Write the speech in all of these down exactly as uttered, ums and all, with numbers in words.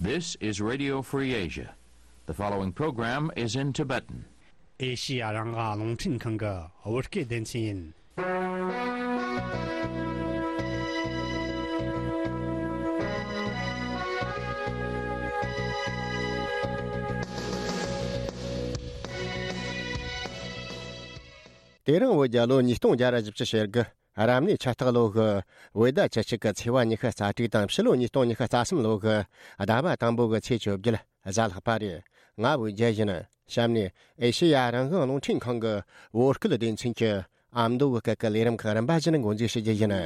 This is Radio Free Asia. The following program is in Tibetan. ཨེ་ཤི་ཡ་རང་དབང་རླུང་འཕྲིན་ཁང་གི་བོད་སྐད་སྡེ་ཚན་ཡིན། དེ་རིང་བོད་རྒྱལ་ལོ་ཉིས་སྟོང་བརྒྱ་ར་བཞི་བཅུ་ཞེ་དགུ། རབ་གནས་ཆུ་སྟག་ལོ་གི་བོད་ཟླ་བཅུ་གཅིག་གི་ཚེས་པ་ཉི་ཤུ་རྩ་དྲུག་དང་ཕྱི་ལོ་ཉིས་སྟོང་ཉི་ཤུ་རྩ་གསུམ་ལོ་གི་ཟླ་བ་དང་པོ་གི་ཚེས་བཅོ་བརྒྱད་གཟའ་ལྷག་པ་རེད། ང་བོད་རྒྱལ་ཡིན། གཤམ་ནས་ཨེ་ཤེ་ཡ་རང་དབང་རླུང་འཕྲིན་ཁང་གི་བོད་སྐད་སྡེ་ཚན་གྱི་ཨ་མདོ་གི་སྐད་ཀྱི་ལས་རིམ་ཁག་རིམ་པ་བཞིན་འགོ་འཛུགས་ཞུ་རྒྱུ་ཡིན།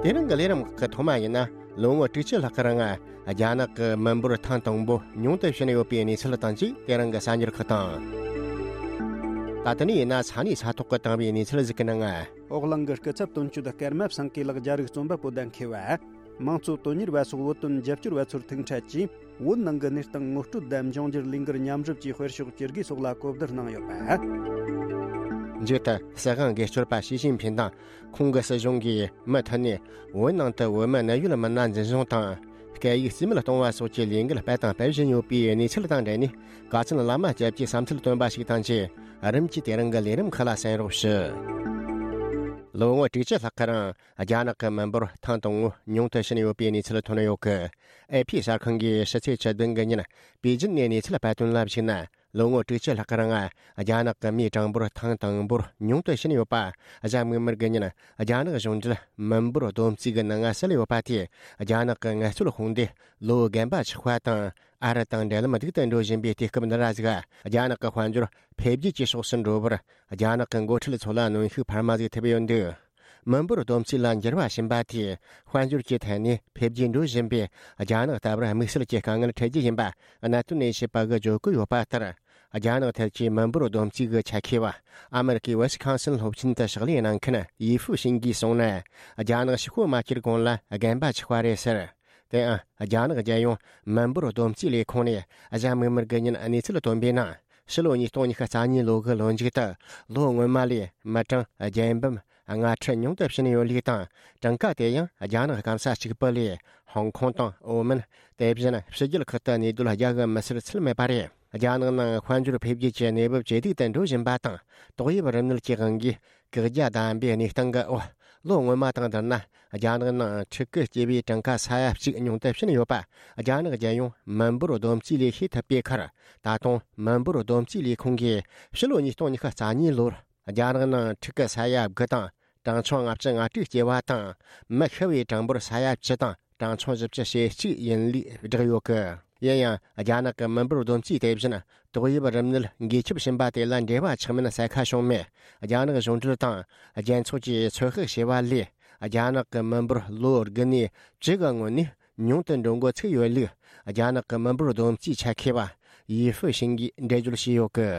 དེ་རིང་གི་ལས་རིམ་ཁག་གི་ཐོག་མ་ཡིན་ན། ལོ་ངོ་དྲུག་ཅུ་ལྷག་གི་རིང་རྒྱ་ནག་གི་མི་འབོར་ཐེངས་དང་པོ་ཉུང་དུ་ཕྱིན་ཡོད་པའི་གནས་ཚུལ་དང་བཅས་དེ་རིང་གི་གསར་འགྱུར་ཁག་དང་། ད་ལྟ་ནས་ཡིན་ན་ས་གནས་ས་ཐོག་གི་དེང་བའི་གནས་ཚུལ་ཟིག་གི་ནང་། འོག་གླིང་གི་སྐུ་ཚབ་དོན་གཅོད་ཀརྨ་བསམ་གྱི་ལགས་རྒྱ་རིགས་རྩོམ་པ་པོ་བདམས་མཁས་པ། དམངས་གཙོ་དོན་གཉེར་བ་སོགས་བོད་དོན་རྒྱབ་སྐྱོར་བ་ཚོར་ཐུག་འཕྲད་ཀྱིས། བོད་ནང་གི་གནས་སྟངས་ངོ་སྤྲོད་དང་འབྱུང་འགྱུར་ལས་འགུལ་མཉམ་རུབ་ཀྱིས་དཔེར་ཤོག་བཅུ་དགུའི་སོགས་ལ་གོ་བསྡུར་གནང་ཡོད་པ། མཇུག་ཏུ་སྲིད་དབང་སྒེར་གཅོད་པ་ཞི་ཅིན་ཕིན་དང་ཁོང་གི་སྲིད་གཞུང་གིས་མུ་མཐུད་ནས་བོད་ནང་དུ་བོད་མི་གནད་ཡོད་མི་སྣ་འཛིན་བཟུང་དང་སྐད་ཡིག་རྩིས་མེད་གཏོང་བ་སོགས་ཀྱི་ལས་འགུལ་སྤེལ་དང་སྤེལ་བཞིན་ཡོད་པའི་གནས་ཚུལ་དང་འབྲེལ་ནས། དགའ་ཚལ་བླ་མ་སྐྱབས་ཀྱིས་བསམ་ཚུལ་བཏོན་པ་ཞིག་དང་བཅས། རིམ་གྱིས་དེ་རིང་གི་ལས་རིམ་ཁག་ལ་གསན་རོགས་ཞུ། ལོ་ངོ་དྲུག་ཅུ་ལྷག་གི་རིང་རྒྱ་ནག་གི་མི་འབོར་ཐེངས་དང་པོ་ཉུང་དུ་ཕྱིན་ཡོད་པའི་གནས་ཚུལ་ཐོན་ཡོད་གི། ཨེ་ཕི་གསར་ཁང་གིས་ཕྱི་ཚེས་བཅུ་བདུན་གི་ཉིན་པེ་ཅིན་ནས་གནས་ཚུལ་སྤེལ་དོན་ལ་གཞིགས་ན། ལོ་ངོ་དྲུག་ཅུ་ལྷག་གི་རིང་རྒྱ་ནག་གི་མིའི་གྲངས་འབོར་ཐེངས་དང་པོར་ཉུང་དུ་ཕྱིན་ཡོད་པ། གཟའ་མིག་དམར་གི་ཉིན་རྒྱ་ནག་གཞུང་འབྲེལ་མི་འབོར་བསྡོམས་རྩིས་ཀྱི་ནང་གསལ་ཡོད་པ་དེས། རྒྱ་ནག་གི་ངལ་རྩོལ་དཔུང་སྡེ་ལོ་རྒན་པ་ཆགས་པ་དང་། ཨ་རི་དང་འབྲེལ་ལམ་སྡུག་ཏུ་འགྲོ་བཞིན་པའི་དུས་སྐབས་འདི་ར་ཟིག་རྒྱ་ནག་གི་དཔལ་འབྱོར་འཕེལ་རྒྱས་ཀྱི་ཕྱོགས་སུ་འགྲོ་བར་རྒྱ་ནག་གི་འགོ་ཁྲིད་ཚོ་ལ་གནོན་ཤུགས་འཕར་མ་ཟིག་ཐེབས་ཡོད་འདུག་མི་འབོར་བསྡོམས་རྩིས་ལ་འགྱུར་བ་ཕྱིན་པ་དེས་དཔལ་འབྱོར་གྱི་ཐད་ནས་འཕེལ་རྒྱས་འགྲོ་བཞིན་པའི་རྒྱ་ནག་ལྟ་བུར་དམིགས་བསལ་གྱི་དཀའ་ངལ་འཕྲད་རྒྱུ་ཡིན་པ་གནད་དོན་ལས་བྱེད་པ་གིས་བརྗོད་ཀྱི་ཡོད་པ་ལྟར། རྒྱ་ནག་ཐད་ཀྱི་མི་འབོར་བསྡོམས་རྩིས་ཀྱི་ཆ་ཤས་པ་ཨ་མེ་རི་ཀའི་ཝི་སི་ཁོན་སིན་སློབ་ཆེན་དུ་ཕྱག་ལས་གནང་མཁན་ཡི་ཧྥུ་ཤིན་གྱིས་གསུངས་ན། རྒྱ་ནག་ཕྱི་སྐོར་མ་སྐྱེལ་གོང་ལ་རྒན་པ་ཆགས་པ་རེད་ཟེར། དེའང་རྒྱ་ནག་རྒྱལ་ཡོངས་མི་འབོར་བསྡོམས་རྩིས་ལས་ཁུངས་ནས་གཟའ་མིག་དམར་གྱི་ཉིན་གནས་ཚུལ་བཏོན་པའི་ནང་། ཕྱི་ལོ་ཉིས་སྟོང་ཉི་ཤུ་རྩ་གཉིས་ལོ་གི་ལོ་མཇུག་ཏུ་ལོ་སྔོན་མ་ལས་མི་གྲངས་བརྒྱད་འབུམ་ལྔ་ཁྲི་ཉུང་དུ་ཕྱིན་ཡོད་ལུགས་དང་། གྲངས་ཀ་དེ་ཡང་རྒྱ་ནག་སྐམ་ས་གཅིག་པུ་ལས་ཧོང་ཀོང་དང་ཨོ་མན། དེ་བཞིན་ཕྱི་རྒྱལ་ཁག་ཏུ་གནས་སྡོད་རྒྱག་གི་མི་སེར་ཚད་མེད་པ་རེད། རྒྱ་ནག་ནང་དཔལ་འབྱོར་འཕེལ་རྒྱས་ཀྱི་གནས་བབ་ཇེ་སྡུག་ཏུ་འགྲོ་བཞིན་པ་དང་། ཏོག་དབྱིབས་རིམས་ནད་ཀྱི་དབང་གིས་བཀག་རྒྱ་བསྡམས་པའི་གནས་སྟངས་ཀྱི་འོག་ལོ་སྔོན་མ་དང་བསྡུར་ན། རྒྱ་ནག་ནང་ཕྲུ་གུ་སྐྱེ་བའི་གྲངས་ཀ་ས་ཡ་གཅིག་ཉུང་དུ་ཕྱིན་ཡོད་པ། རྒྱ་ནག་རྒྱལ་ཡོངས་མི་འབོར་བསྡོམས་རྩིས་ལས་ཤེས་ཐུབ་པའི་ཁར། ད་དུང་མི་འབོར་བསྡོམས་རྩིས་ལས་ཁུངས་ཀྱིས་ཕྱི་ལོ་ཉིས་སྟོང་ཉི་ཤུ་རྩ་གཉིས་ལོར་རྒྱ་ནག་ནང་ཕྲུ་གུ་ས་ཡ་དགུ་དང་གྲངས་ཆུང་ལྔ་བཅུ་ང་དྲུག་སྐྱེ་བ་དང་། མི་ཤི་བའི་གྲངས་འབོར་ས་ཡ་བཅུ་དང་གྲངས་ཆུང་བཞི་བཅུ་ཞེ་གཅིག་ཡིན་ལུགས་བསྒྲགས་ཡོད་གི། ཡིན་ཡང་། རྒྱ་ནག་གི་མི་འབོར་བསྡོམས་རྩིས་དེ་བཞིན་ཏོག་དབྱིབས་རིམས་ནད་འགོས་ཁྱབ་ཕྱིན་པ་དེ་ལ་འབྲེལ་བ་ཆགས་མིན་གསལ་ཁ་བྱུང་མེད། རྒྱ་ནག་གཞུང་འབྲེལ་དང་རྒྱལ་ཚོགས་ཀྱིས་ཚོད་དཔག་བྱས་པ་ལས། རྒྱ་ནག་གི་མི་འབོར་ལོ་དགུ་ནས་བཅུ་གི་སྔོན་ནས་ཉུང་དུ་འགྲོ་འགོ་ཚུགས་ཡོད་ལུགས། རྒྱ་ནག་གི་མི་འབོར་བསྡོམས་རྩིས་ཆ་མཁས་པ་ཡི་ཧྥུ་ཤིན་གྱིས་འགྲེལ་བརྗོད་བྱས་ཡོད་གི།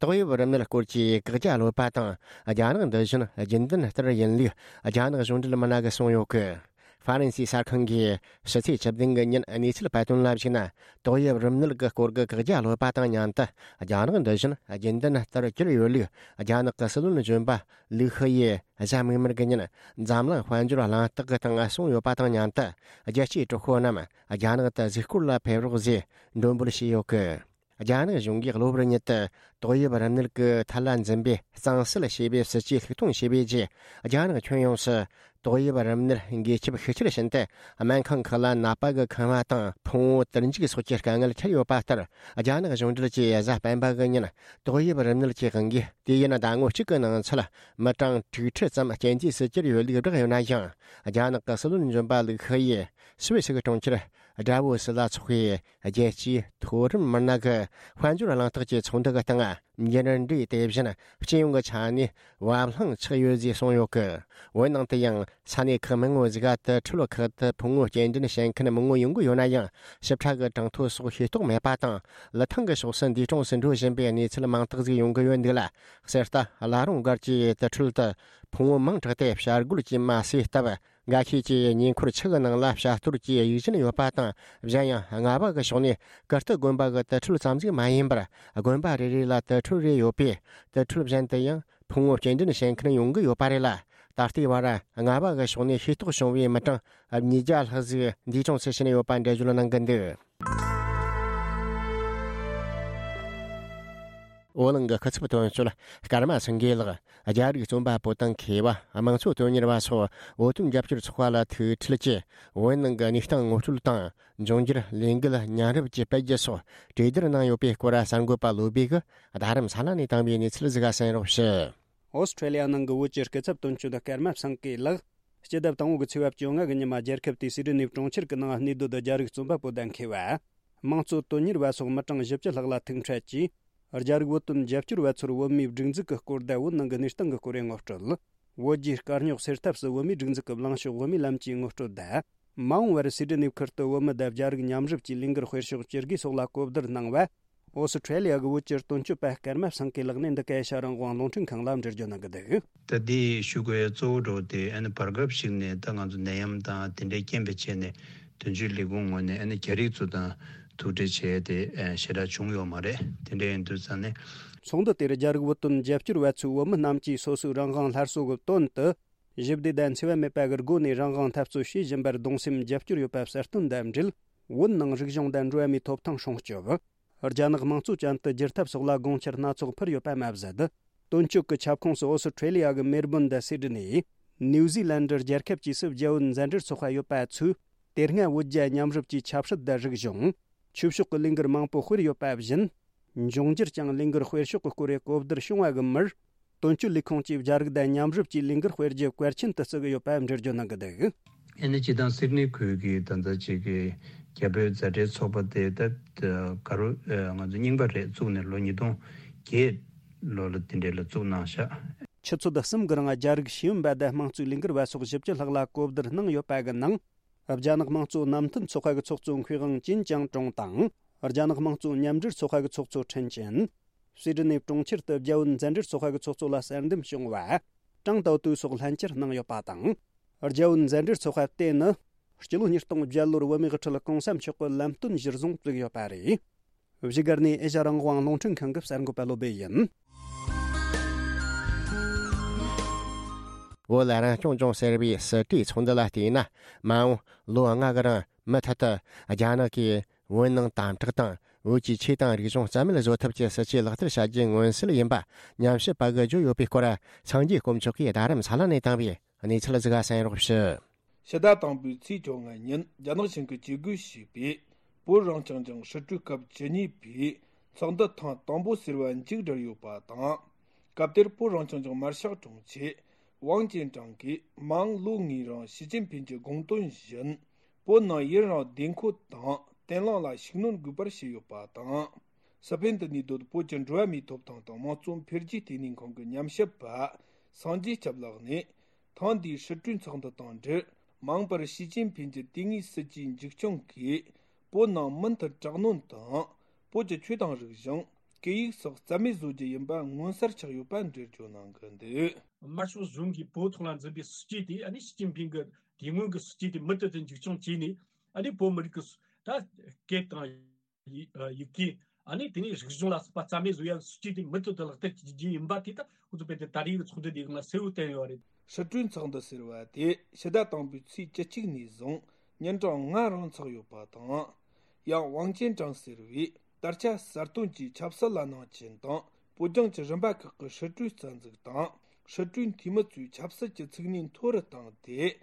ཏོག་དབྱིབས་རིམས་ནད་སྐོར་གྱི་བཀག་རྒྱ་ལོག་པ་དང་། རྒྱ་ནག་འདི་བཞིན་རྒྱུན་ལྡན་ལྟར་ཡིན་ལུགས་རྒྱ་ནག་གཞུང་འབྲེལ་མི་སྣ་གིས་གསུངས་ཡོད་གི། ཧྥ་རན་སིའི་གསར་ཁང་གིས་ཕྱི་ཚེས་བཅུ་བདུན་གི་ཉིན་གནས་ཚུལ་སྤེལ་དོན་ལ་གཞིགས་ན། ཏོག་དབྱིབས་རིམས་ནད་ཀྱི་སྐོར་གྱི་བཀག་རྒྱ་ལོག་པ་དང་མཉམ་དུ། རྒྱ་ནག་འདི་བཞིན་རྒྱུན་ལྡན་ལྟར་གྱུར་ཡོད་ལུགས། རྒྱ་ནག་གི་སྲིད་བློན་གཞོན་པ་ལིའུ་ཧེ་ཡིས་གཟའ་མིག་དམར་གྱི་ཉིན་འཛམ་གླིང་དཔལ་འབྱོར་གླེང་སྟེགས་ཀྱི་སྟེང་གསུངས་ཡོད་པ་དང་མཉམ་དུ། རྒྱལ་སྤྱིའི་གྲོགས་པོ་རྣམས་རྒྱ་ནག་ཏུ་གཟིགས་སྐོར་ལ་ཕེབས་རོགས་ཞེས་འབོད་སྐུལ་བྱས་ཡོད་གི། རྒྱ་ནག་གཞུང་གིས་གློ་བུར་ཉིད་དུ་ཏོག་དབྱིབས་རིམས་ནད་ཀྱི་ཐད་ལ་འཛིན་པའི་གཙང་སེལ་ཞེས་པའི་སྲིད་ཇུས་ལྷུག་གཏོང་བྱས་པའི་རྗེས། རྒྱ་ནག་ཁྱོན་ཡོངས་སུ་ཏོག་དབྱིབས་རིམས་ནད་འགོས་ཁྱབ་ཤུགས་ཆེར་ཕྱིན་ཏེ། སྨན་ཁང་ཁག་ལ་ནད་པ་གི་ཁང་བ་དང་ཕུང་བོ་དུར་འཇུག་སོགས་ཀྱི་དཀའ་ངལ་འཕྲད་ཡོད་པ་ལྟར། རྒྱ་ནག་གཞུང་འབྲེལ་གྱིས་གཟའ་སྤེན་པ་གི་ཉིན་ཏོག་དབྱིབས་རིམས་ནད་ཀྱི་དབང་གིས་དུས་ཡུན་ཟླ་ངོ་གཅིག་གི་ནང་ཚུད་མི་གྲངས་དྲུག་ཁྲི་ཙམ་རྐྱེན་འདས་སུ་གྱུར་ཡོད་ལུགས་བསྒྲགས་ཡོད་ན་ཡང་། རྒྱ་ནག་གི་སྲིད་བློན་གཞོན་པ་ལིའུ་ཧེ་ཡིས་སུད་སི་གི་གྲོང་ཁྱེར་ཌ་བོ་སི་ལ་འཚོགས་པའི་རྒྱལ་སྤྱིའི་མཐོ་རིམ་མི་སྣ་གི་དཔལ་འབྱོར་གླེང་སྟེགས་ཀྱི་ཚོགས་འདུ་གི་སྟེང་། འགྱུར་འགྲོས་དེ་བཞིན་སྤྱི་ཡོངས་ཀྱི་ཆ་ནས་བབ་བརླིང་ཆགས་ཡོད་ཅེས་གསུངས་ཡོད་གི། འོན་ནང་དུ་ཡང་ས་གནས་ཁག་མང་བོ་ཞིག་ག་དུར་ཁྲོད་ཁག་ཏུ་ཕུང་བོ་སྐྱེལ་འདྲེན་བྱེད་མཁན་མང་བོ་ཡོང་གི་ཡོད་ན་ཡང་། ཞིབ་ཕྲ་གི་གྲངས་ཐོ་སོགས་ཤེས་རྟོགས་མེད་པ་དང་། ལི་ཐང་གི་ཕྱོགས་སུ་འདས་གྲོངས་སུ་འགྲོ་བཞིན་པའི་གནས་ཚུལ་མང་དག་ཞིག་ཡོང་གི་ཡོད་འདུག་ལ། གསེར་རྟ་བླ་རུང་སྒར་གྱི་དུར་ཁྲོད་དུ་ཕུང་བོ་མང་དྲགས་ཏེ་བྱ་རྒོད་ཀྱིས་མ་བསད་སྟབས། འགའ་ཤས་ཀྱིས་ཉེ་འཁོར་ཆུ་གི་ནང་ལ་བྱ་གཏོར་གྱི་ཡིད་བཞིན་ཡོད་པ་དང་། གཞན་ཡང་རྔ་བ་གི་ཕྱོགས་ནས་ཀིརྟི་དགོན་པ་གི་དུར་ཁྲོད་ཙམ་ཞིག་མ་ཡིན་པར། དགོན་པ་རེ་རེ་ལ་དུར་ཁྲོད་རེ་ཡོད་པས། དུར་ཁྲོད་གཞན་དུ་ཡང་ཕུང་བོ་སྐྱེལ་འདྲེན་བྱེད་མཁན་ཡོང་གི་ཡོད་པ་རེད་ལ། ད་ ད་ལྟའི་བར་རྔ་བ་གི་ཕྱོགས་ནས་ཤེས་རྟོགས་བྱུང་བའི་མི་གྲངས་ཉིས་བརྒྱ་ལྷག་ཟིག་འདས་གྲོངས་སུ་ཕྱིན་ཡོད་པ་འགྲེལ་བརྗོད་གནང་གི་འདུག་བོད་ནང་གི་སྐུ་ཚབ་དོན་གཅོད་ཀརྨ་སེང་གེ་ལགས། རྒྱ་རིགས་རྩོམ་པ་པོ་དང་མཁས་པ། དམངས་གཙོ་དོན་གཉེར་བ་སོགས་བོད་དོན་རྒྱབ་སྐྱོར་ཚོགས་པ་ལ་ཐུག་འཕྲད་ཀྱིས། བོད་ནང་གི་གནས་སྟངས་ངོ་སྤྲོད་དང་། འབྱུང་འགྱུར་ལས་འགུལ་མཉམ་རུབ་ཀྱི་སྤེལ་རྒྱུ་སོགས་གྲོས་བསྡུར་གནང་ཡོད་པའི་སྐོར། གསར་འགོད་པ་བློ་བྷེ་གིས་རྡ་རམ་ས་ལ་ནས་བཏང་བའི་གནས་ཚུལ་ཟིག་གསན་རོགས་ཞུ། ཨོ་སི་ཁྲེ་ལི་ཡ་ནང་གི་བོད་ཀྱི་སྐུ་ཚབ་དོན་གཅོད་ཀརྨ་སེང་གེ་ལགས། སྤྱི་ཟླ་དང་པོ་གི་ཚེས་པ་བཅོ་ལྔ་གི་ཉི་མ། རྒྱལ་ཁབ་དེའི་སིད་ནི་གྲོང་ཁྱེར་གྱི་ནང་གནས་སྡོད་རྒྱ་རིགས་རྩོམ་པ་པོ་དང་མཁས་པ། དམངས་གཙོ་དོན་གཉེར་བ་སོགས་མི་གྲངས་བཞི་བཅུ་ལྷག་ལ་ཐུག་འཕྲད་ཀྱིས། རྒྱ་རིགས་བོད་དོན་རྒྱབ་སྐྱོར་བ་ཚོར་བོད་མིའི་སྒྲིག་འཛུགས་ཀྱི་སྐོར་དང་། བོད་ནང་གི་གནས་སྟངས་ཀྱི་སྐོར་ངོ་སྤྲོད། བོད་རྒྱའི་དཀའ་རྙོག་སེལ་ཐབས་སུ་བོད་མིའི་སྒྲིག་འཛུགས་ཀྱི་ལངས་ཕྱོགས། བོད་མིའི་ལམ་གྱི་ངོ་སྤྲོད་དང་། མ་འོངས་པར་སིད་ནི་ཁུལ་དུ་བོད་མི་དང་རྒྱ་རིགས་མཉམ་རུབ་ཀྱི་ལས་འགུལ་སྤེལ་ཕྱོགས་ཇི་དགོས་སོགས་ལ་གོ་བསྡུར་གནང་བ། ཨོ་སི་ཁྲེ་ལི་ཡ་གི་བོད་ཀྱི་དོན་གཅོད་པ་ཀརྨ་སེང་གེ་ལགས་ནས་འདི་ག་ཨེ་ཤ་རང་དབང་རླུང་འཕྲིན་ཁང་ལ་འགྲེལ་བརྗོད་གནང་གི་འདུག་ད་ལྟའི་ཞུ་དགོས་གཙོ་བོ་འདྲ་བོ་དེ། ཨ་ནི་བར་སྐབས་ཤིག་ནས་ད་ང་ཚོ་ནད་ཡམས་དང་དེ་འདྲའི་རྐྱེན་པས་བྱས་ནས། དོན་གཅོད་ལས་ཁུངས་ངོས་ནས་ཨ་ནི་རྒྱ་རིགས་ཚོ་དང་ཐུག་འཕྲད་བྱས་ཏེ་ཞེ་དྲག་བྱུང་ཡོད་མ་རེད། དེ་འདྲ་ཡིན་དུས་ཙང་ནས། ཚོགས་འདུ་དེར་རྒྱ་རིགས་བོད་དོན་རྒྱབ་སྐྱོར་བ་ཚོས་བོད་མི་རྣམས་ཀྱིས་སོ་སོའི་རང་དབང་སླར་གསོ་གི་དོན་དུ། ཞི་བདེ་དང་འཚེ་བ་མེད་པ་གི་སྒོ་ནས་རང་དབང་འཐབ་རྩོད་བྱེད་བཞིན་པར་གདུང་སེམས་རྒྱབ་སྐྱོར་ཡོད་པ་གསལ་སྟོན་དང་འབྲེལ། བོད་ནང་རིག་གཞུང་དང་འགྲོ་བ་མིའི་ཐོབ་ཐང་སྲུང་སྐྱོབ། རྒྱ་ནག་དམངས་གཙོ་ཅན་དུ་བསྒྱུར་ཐབས་སོགས་ལ་དགོངས་འཆར་སྣ་ཚོགས་ཕུལ་ཡོད་པ་མ་ཟད། དོན་གཅོད་ཀྱི་ཁྱབ་ཁོངས་སུ་ཨོ་སི་ཁྲེ་ལི་ཡ་གི་མེལ་བོན་དང་སིད་ནི། ནིའུ་ཟི་ལན་ཌི་རྒྱལ་ཁབ་བཅས་སུ་རྒྱ་བོད་མཛའ་འབྲེལ་ཚོགས་པ་ཡོད་པ་ཚོས། དེ་སྔ་བོད་རྒྱ་མཉམ་རུབ་ཀྱི་ཆབ་སྲིད་དང་རིག་གཞུང་། ཆོས་ཕྱོགས་ཀྱི་ལས་འགུལ་མང་པོ་སྤེལ་ཡོད་པ་བཞིན། འབྱུང་འགྱུར་ཀྱང་ལས་འགུལ་སྤེལ་ཕྱོགས་ཀྱི་སྐོར་གོ་བསྡུར་བྱུང་བ་གི་མུར། དོན་གཅོད་ལས་ཁུངས་ཀྱིས་རྒྱ་རིགས་དང་མཉམ་རུབ་ཀྱིས་ལས་འགུལ་སྤེལ་རྒྱུ་གལ་ཆེན་དུ་བརྩི་གི་ཡོད་པ་འགྲེལ་བརྗོད་གནང་གི་འདུག་ཨ་ནི་སྤྱི་བཏང་སིད་ནི་ཁུལ་གྱི་ད་ལྟ་ཅིག་གི་རྒྱ་བོད་མཛའ་འབྲེལ་ཚོགས་པ་དེ་ད་ག་རུ་ང་ཚོ་རྙིང་པ་རེད། བཙུགས་ནས་ལོ་ཉིས་སྟོང་བརྒྱད་ལོ་ལ་དེ་འདྲས་ལ་བཙུགས་གནང་ཤག་ཆུ་ཚོད་གསུམ་གི་རིང་རྒྱ་རིགས་ཤེས་ཡོན་པ་དང་དམངས་གཙོའི་ལས་འགུལ་བ་སོགས་བཞི་བཅུ་ལྷག་ལ་གོ་བསྡུར་གནང་ཡོད་པ་གི་ནང་། རྒྱ་ནག་དམངས་གཙོ་བསྣམས་མཐུན་ཚོགས་པ་གི་ཚོགས་གཙོ་མཁས་དབང་ཅིན་ཅང་ཀྲུང་དང་། རྒྱ་ནག་དམངས་གཙོ་མཉམ་འབྲེལ་ཚོགས་པ་གི་ཚོགས་གཙོ་ཁྲིན་ཅན། སི་ཌི་ནི་གྲོང་ཁྱེར་དུ་རྒྱ་བོད་མཛའ་འབྲེལ་ཚོགས་པ་གི་ཚོགས་གཙོ་ལ་གསར་འདེམས་བྱུང་བ། ཀྲང་ཏའོ་ཏུའུ་སོགས་ལྷན་བཅར་གནང་ཡོད་པ་དང་། རྒྱ་བོད་མཛའ་འབྲེལ་ཚོགས་པ་དེ་ནི། སྤྱི་ལོ་ཉིས་སྟོང་བརྒྱད་ལོར་བོད་མིའི་དབུ་ཁྲིད་གོང་ས་མཆོག་གི་ལམ་སྟོན་གཞིར་བཟུང་བཙུགས་ཡོད་པ་རེད། བཞུགས་སྒར་ནས་ཨེ་ཤ་རང་དབང་རླུང་འཕྲིན་ཁང་གི་གསར་འགོད་པ་བློ་སྦེ་ཡིན། བོད་ལ་རང་སྐྱོང་ལྗོངས་ཟེར་བའི་སྲིད་གྲོས་ཚོགས་འདུ་ལ་བལྟས་ན། མ་འོངས་ལོ་ལྔ་གི་རིང་མུ་མཐུད་དུ་རྒྱ་ནག་གིས་བོད་ནང་དམ་དྲག་དང་། བོད་ཀྱི་ཆོས་དང་རིག་གཞུང་རྩ་མེད་བཟོ་ཐབས་ཀྱི་སྲིད་ཇུས་ལག་བསྟར་བྱ་རྒྱུའི་མངོན་གསལ་ཡིན་པ་ཉམས་ཞིབ་པ་གིས་བརྗོད་ཡོད་པའི་སྐོར། སངས་རྒྱས་དཀོན་མཆོག་གིས་རྡ་རམ་ས་ལ་ནས་བཏང་བའི་གནས་ཚུལ་ཟིག་གསན་རོགས་ཞུ། ཕྱི་ཟླ་དང་པོའི་ཚེས་བཅོ་ལྔ་ཉིན་རྒྱ་ནག་གཞུང་གིས་ཇུས་འགོད་བྱས་པའི་བོད་རང་སྐྱོང་ལྗོངས་སྲིད་གྲོས་སྐབས་བཅུ་གཉིས་པའི་ཚོགས་འདུ་ཐེངས་དང་པོ་ཟེར་བ་མཇུག་བསྒྲིལ་ཡོད་པ་དང་། སྐབས་དེར་བོད་རང་སྐྱོང་ལྗོངས་མར་ཤག་དྲུང་ཆེ་ཝང་ཅན་ཀྲང་གིས་མ་འོངས་ལོ་ལྔའི་རིང་ཞི་ཅིན་ཕིན་གྱི་དགོངས་དོན་བཞིན། བོད་ནང་ཡུན་རིང་བདེ་འཁོད་དང་བརྟན་ལྷིང་ལ་ཤུགས་སྣོན་དགོས་པར་བཤད་ཡོད་པ་དང་། སི་ཕེན་དུ་གནས་སྡོད་བོད་ཀྱི་འགྲོ་བ་མིའི་ཐོབ་ཐང་དང་དམངས་གཙོ་འཕེལ་རྒྱས་ལྟེ་གནས་ཁང་གི་ཉམས་ཞིབ་པ་སངས་རྒྱས་སྐྱབས་ལགས་ནས། ཐེངས་འདིའི་སྲིད་གྲོས་ཚོགས་འདུ་དང་འབྲེལ། མ་འོངས་པར་ཞི་ཅིན་ཕིན་གྱི་དུས་ངེས་སྲིད་ཇུས་མཇུག་སྐྱོང་གིས། བོད་ནང་མུ་མཐུད་དྲག་གནོན་དང་། བོད་ཀྱི་ཆོས་དང་རིག་གཞུང་། སྐད་ཡིག་སོགས་རྩ་མེད་བཟོ་རྒྱུ་ཡིན་པ་མངོན་གསལ་ཆགས་ཡོད་པ་འགྲེལ་བརྗོད་གནང་གི་འདུག་དམར་ཤོག་གཞུང་གིས་བོད་ཐོག་ལ་འཛིན་པའི་སྲིད་ཇུས་དེ། ཨ་ནི་ཞི་ཅིན་ཕིན་གྱི་དེ་སྔོན་གྱི་སྲིད་ཇུས་དེ་མུ་མཐུད་དུ་མཇུག་སྐྱོང་བྱས་ནས། ཨ་ནི་བོད་མི་རིགས་ཀྱི་ད་སྐད་དང་། ཡི་ཡི་གེ། ཨ་ནི་དེ་ནས་རིག་གཞུང་ལ་སོགས་པ་རྩ་མེད་བཟོ་ཡ་སྲིད་ཇུས་དེ་མུ་མཐུད་དུ་ལག་བསྟར་བྱེད་རྒྱུ་ཡིན་པ་དེ་ད་ཁོ་ཚོ་དཔེ་དེ་ད་རེས་ཀྱི་ཚོགས་འདུ་དེའི་སྒང་ལ་གསལ་བོ་བསྟན་ཡོད་རེད། སྲིད་གྲོས་ཚོགས་འདུ་ཟེར་བ་དེ་ཕྱི་ཟླ་དང་པོའི་ཚེས་བཅུ་གཅིག་ནས་བཟུང་ཉིན་གྲངས་ལྔ་རིང་འཚོགས་ཡོད་པ་དང་། ཡང་ཝང་ཅན་ཀྲང་ཟེར་བས་དར་ཆ་གསར་བཏོན་གྱིས་ཆབ་སྲིད་ལ་སྣང་ཆེན་དང་། བོད་ལྗོངས་ཀྱི་རིམ་པ་ཁག་གི་སྲིད་གྲོས་རྩ་འཛུགས་དང་། སྲིད་གྲོས་འཐུས་མི་ཚོས་ཆབ་སྲིད་ཀྱི་ཚུགས་གནས་མཐོ་རུ་བཏང་སྟེ།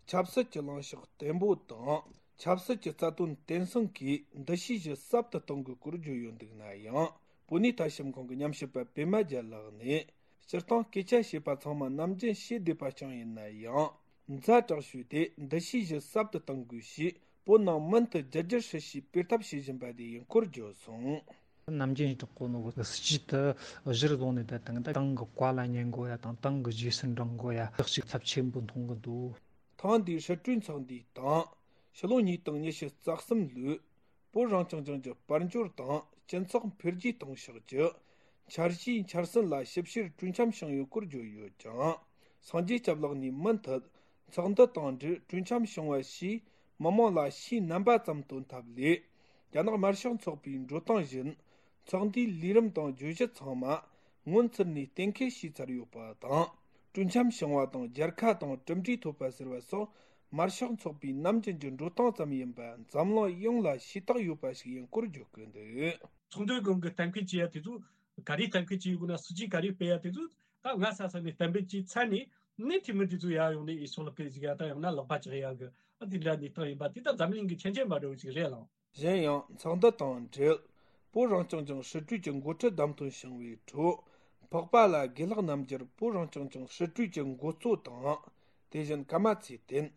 ཆབ་སྲིད་ཀྱི་ལངས་ཕྱོགས་བརྟན་པོ་དང་། ཆབ་སྲིད་ཀྱི་རྩ་དོན་བརྟན་སྲུང་གིས་འདུ་ཤེས་བཞི་ཟབ་ཏུ་གཏོང་དགོས་སྐོར་བརྗོད་ཡོད་འདུག་ན་ཡང་། བོད་གནས་ཐ་ཞབས་ཁང་གི་ཉམས་ཞིབ་པ་པད་མ་རྒྱལ་ལགས་ནས། སྤྱིར་བཏང་སྐད་ཆ་བཤད་པ་ཚང་མ་ནམ་རྒྱུན་བཤད་བསྡད་པ་རྐྱང་ཡིན་ན་ཡང་། ཛ་དྲག་ཤོས་དེ་འདུ་ཤེས་བཞི་ཟབ་ཏུ་གཏང་དགོས་ཞེས། བོད་ནང་མུ་མཐུད་རྒྱ་སྒྱུར་ཧྲིལ་ཞིག་སྤེལ་ཐབས་བྱེད་བཞིན་པ་དེ་ཡིན་སྐོར་བརྗོད་སོང་། ནམ་རྒྱུན་ཡིན་དྲག་གོ་ནོ་གི་སྲིད་ཇུས་དེ་གཞིར་བཟུང་ནས། ད་དང་ད་ཏང་གི་བཀའ་ལ་ཉན་དགོས་ཡ་དང་། ཏང་གི་རྗེས་སུ་འབྲང་དགོས་ཡ། ལེགས་ཤིག་ཚབས་ཆེན་པོ་མཐོང་གི་འདུག་ཐེངས་འདིའི་སྲིད་གྲོས་ཚོགས་འདུའི་སྟེང་། ཕྱི་ལོ་ཉིས་སྟོང་ཉི་ཤུ་རྩ་གསུམ་ལོའི་བོད་རང་སྐྱོང་ལྗོངས་ཀྱི་དཔལ་འབྱོར་དང་སྤྱི་ཚོགས་འཕེལ་རྒྱས་གཏོང་ཕྱོགས་ཀྱི་འཆར་གཞིའི་འཆར་ཟིན་ལ་ཞིབ་བཤེར་གྲོས་འཆམ་བྱུང་ཡོད་སྐོར་བརྗོད་ཡོད་ཀྱང་། སངས་རྒྱས་སྐྱབས་ལགས་ནས་མུ་མཐུད་ཚོགས་འདུ་དང་འབྲེལ་གྲོས་འཆམ་བྱུང་བ་ཞིག་མི་མང་ལ་ཕྱིའི་རྣམ་པ་ཙམ་སྟོན་ཐབས་ལས། རྒྱ་ནག་དམར་ཤོག་ཚོགས་པའི་འགྲོ་སྟངས་བཞིན་ཚོགས་འདུའི་ལས་རིམ་དང་བརྗོད་གཞི་ཚང་མ་སྔོན་ཚུད་ནས་གཏན་འཁེལ་བྱས་ཚར་ཡོད་པ་དང་། སྤྲོ་འཆམ་བྱུང་བ་དང་རྒྱལ་ཁ་དང་གྲུབ་འབྲས་ཐོབ་པ་ཟེར་བ་སོགས་དམར་ཤོག་ཚོགས་པའི་ནམ་རྒྱུན་གྱི་འགྲོ་སྟངས་ཙམ་ཡིན་པ་འཛམ་གླིང་ཡོངས་ལ་ཤེས་རྟོགས་ཡོད་པ་ཞིག་ཡིན་སྐོར་བརྗོད་ཀྱི་འདུག། ཚོགས་འདུའི་སྒང་གི་གཏན་འཁེལ་བྱེད་ཡ་དེ་ཚོ་ག་རེ་གཏན་འཁེལ་བྱེད་ཡོད་དགོས་ན། སྲིད་ཇུས་ག་རེ་སྤེལ་ཡ་དེ་ཚོ་ད་ང་ས་ས་ནས་གཏན་འབེབས་བྱས་ཚར་ནས་ནི་འཐུས་མི་དེ་ཚོ་ཡར་ཡོང་ནས་ཨེ་སོ་ལག་གི་ཟིག་ཡ་དང་ཡང་ན་ལག་པ་བཅག་ཡ་གི་ཨ་དེ་འདྲ་གནས་སྟངས་ཡིན་པ་དེ་ད་འཛམ་གླིང་གི་ཁྱད་ཆོས་འབའ་འདྲ་བོ་ཞིག་རེད་ལགས། གཞན་ཡང་ཚོགས་འདུ་དང་འབྲེལ་བོད་རང་སྐྱོང་ལྗོངས་སྲིད་གྲོས་ཀྱི་འགོ་ཁྲིད་བདམས་ཐོན་བྱུང་བའི་ཁྲོད། འཕགས་པ་ལ་དགེ་ལགས་རྣམ་རྒྱལ་བོད་རང་སྐྱོང་ལྗོངས་སྲིད་གྲོས་ཀྱི་འགོ་གཙོ་དང་། དེ་བཞིན་ཀརྨ་ཚེ་བརྟན།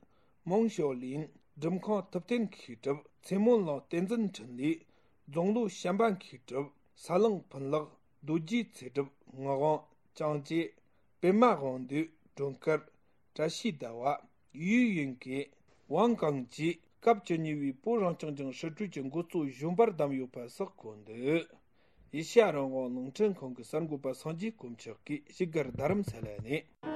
མོང་ཞའོ་ལིན། འགྲུབ་ཁང་ཐུབ་བསྟན་མཁས་གྲུབ། ཚེ་སྨོན་གླིང་བསྟན་འཛིན་འཕྲིན་ལས། རྫོང་ལོ་བྱམས་པ་མཁས་གྲུབ། ས་གླང་ཕུན་ལེགས། རྡོ་རྗེ་ཚེ་སྒྲུབ། ངག་དབང་། ཅང་ཅེ། པད་མ་དབང་འདུས། སྒྲོལ་དཀར། བཀྲ་ཤིས་ཟླ་བ། ཡུས་ཡུན་ཀེ། ཝང་ཀང་ཅི། སྐབས་བཅུ་གཉིས་པའི་བོད་རང་སྐྱོང་ལྗོངས་སྲིད་གྲོས་ཀྱི་འགོ་གཙོ་གཞོན་པར་བདམས་ཡོད་པ་སོགས་གོ་འདུག། ཨེ་ཤེ་ཡ་རང་དབང་རླུང་འཕྲིན་ཁང་གི་གསར་འགོད་པ་སངས་རྒྱས་དཀོན་མཆོག་གིས་ཞིབ་དགར་རྡ་རམ་ས་ལ་ནས།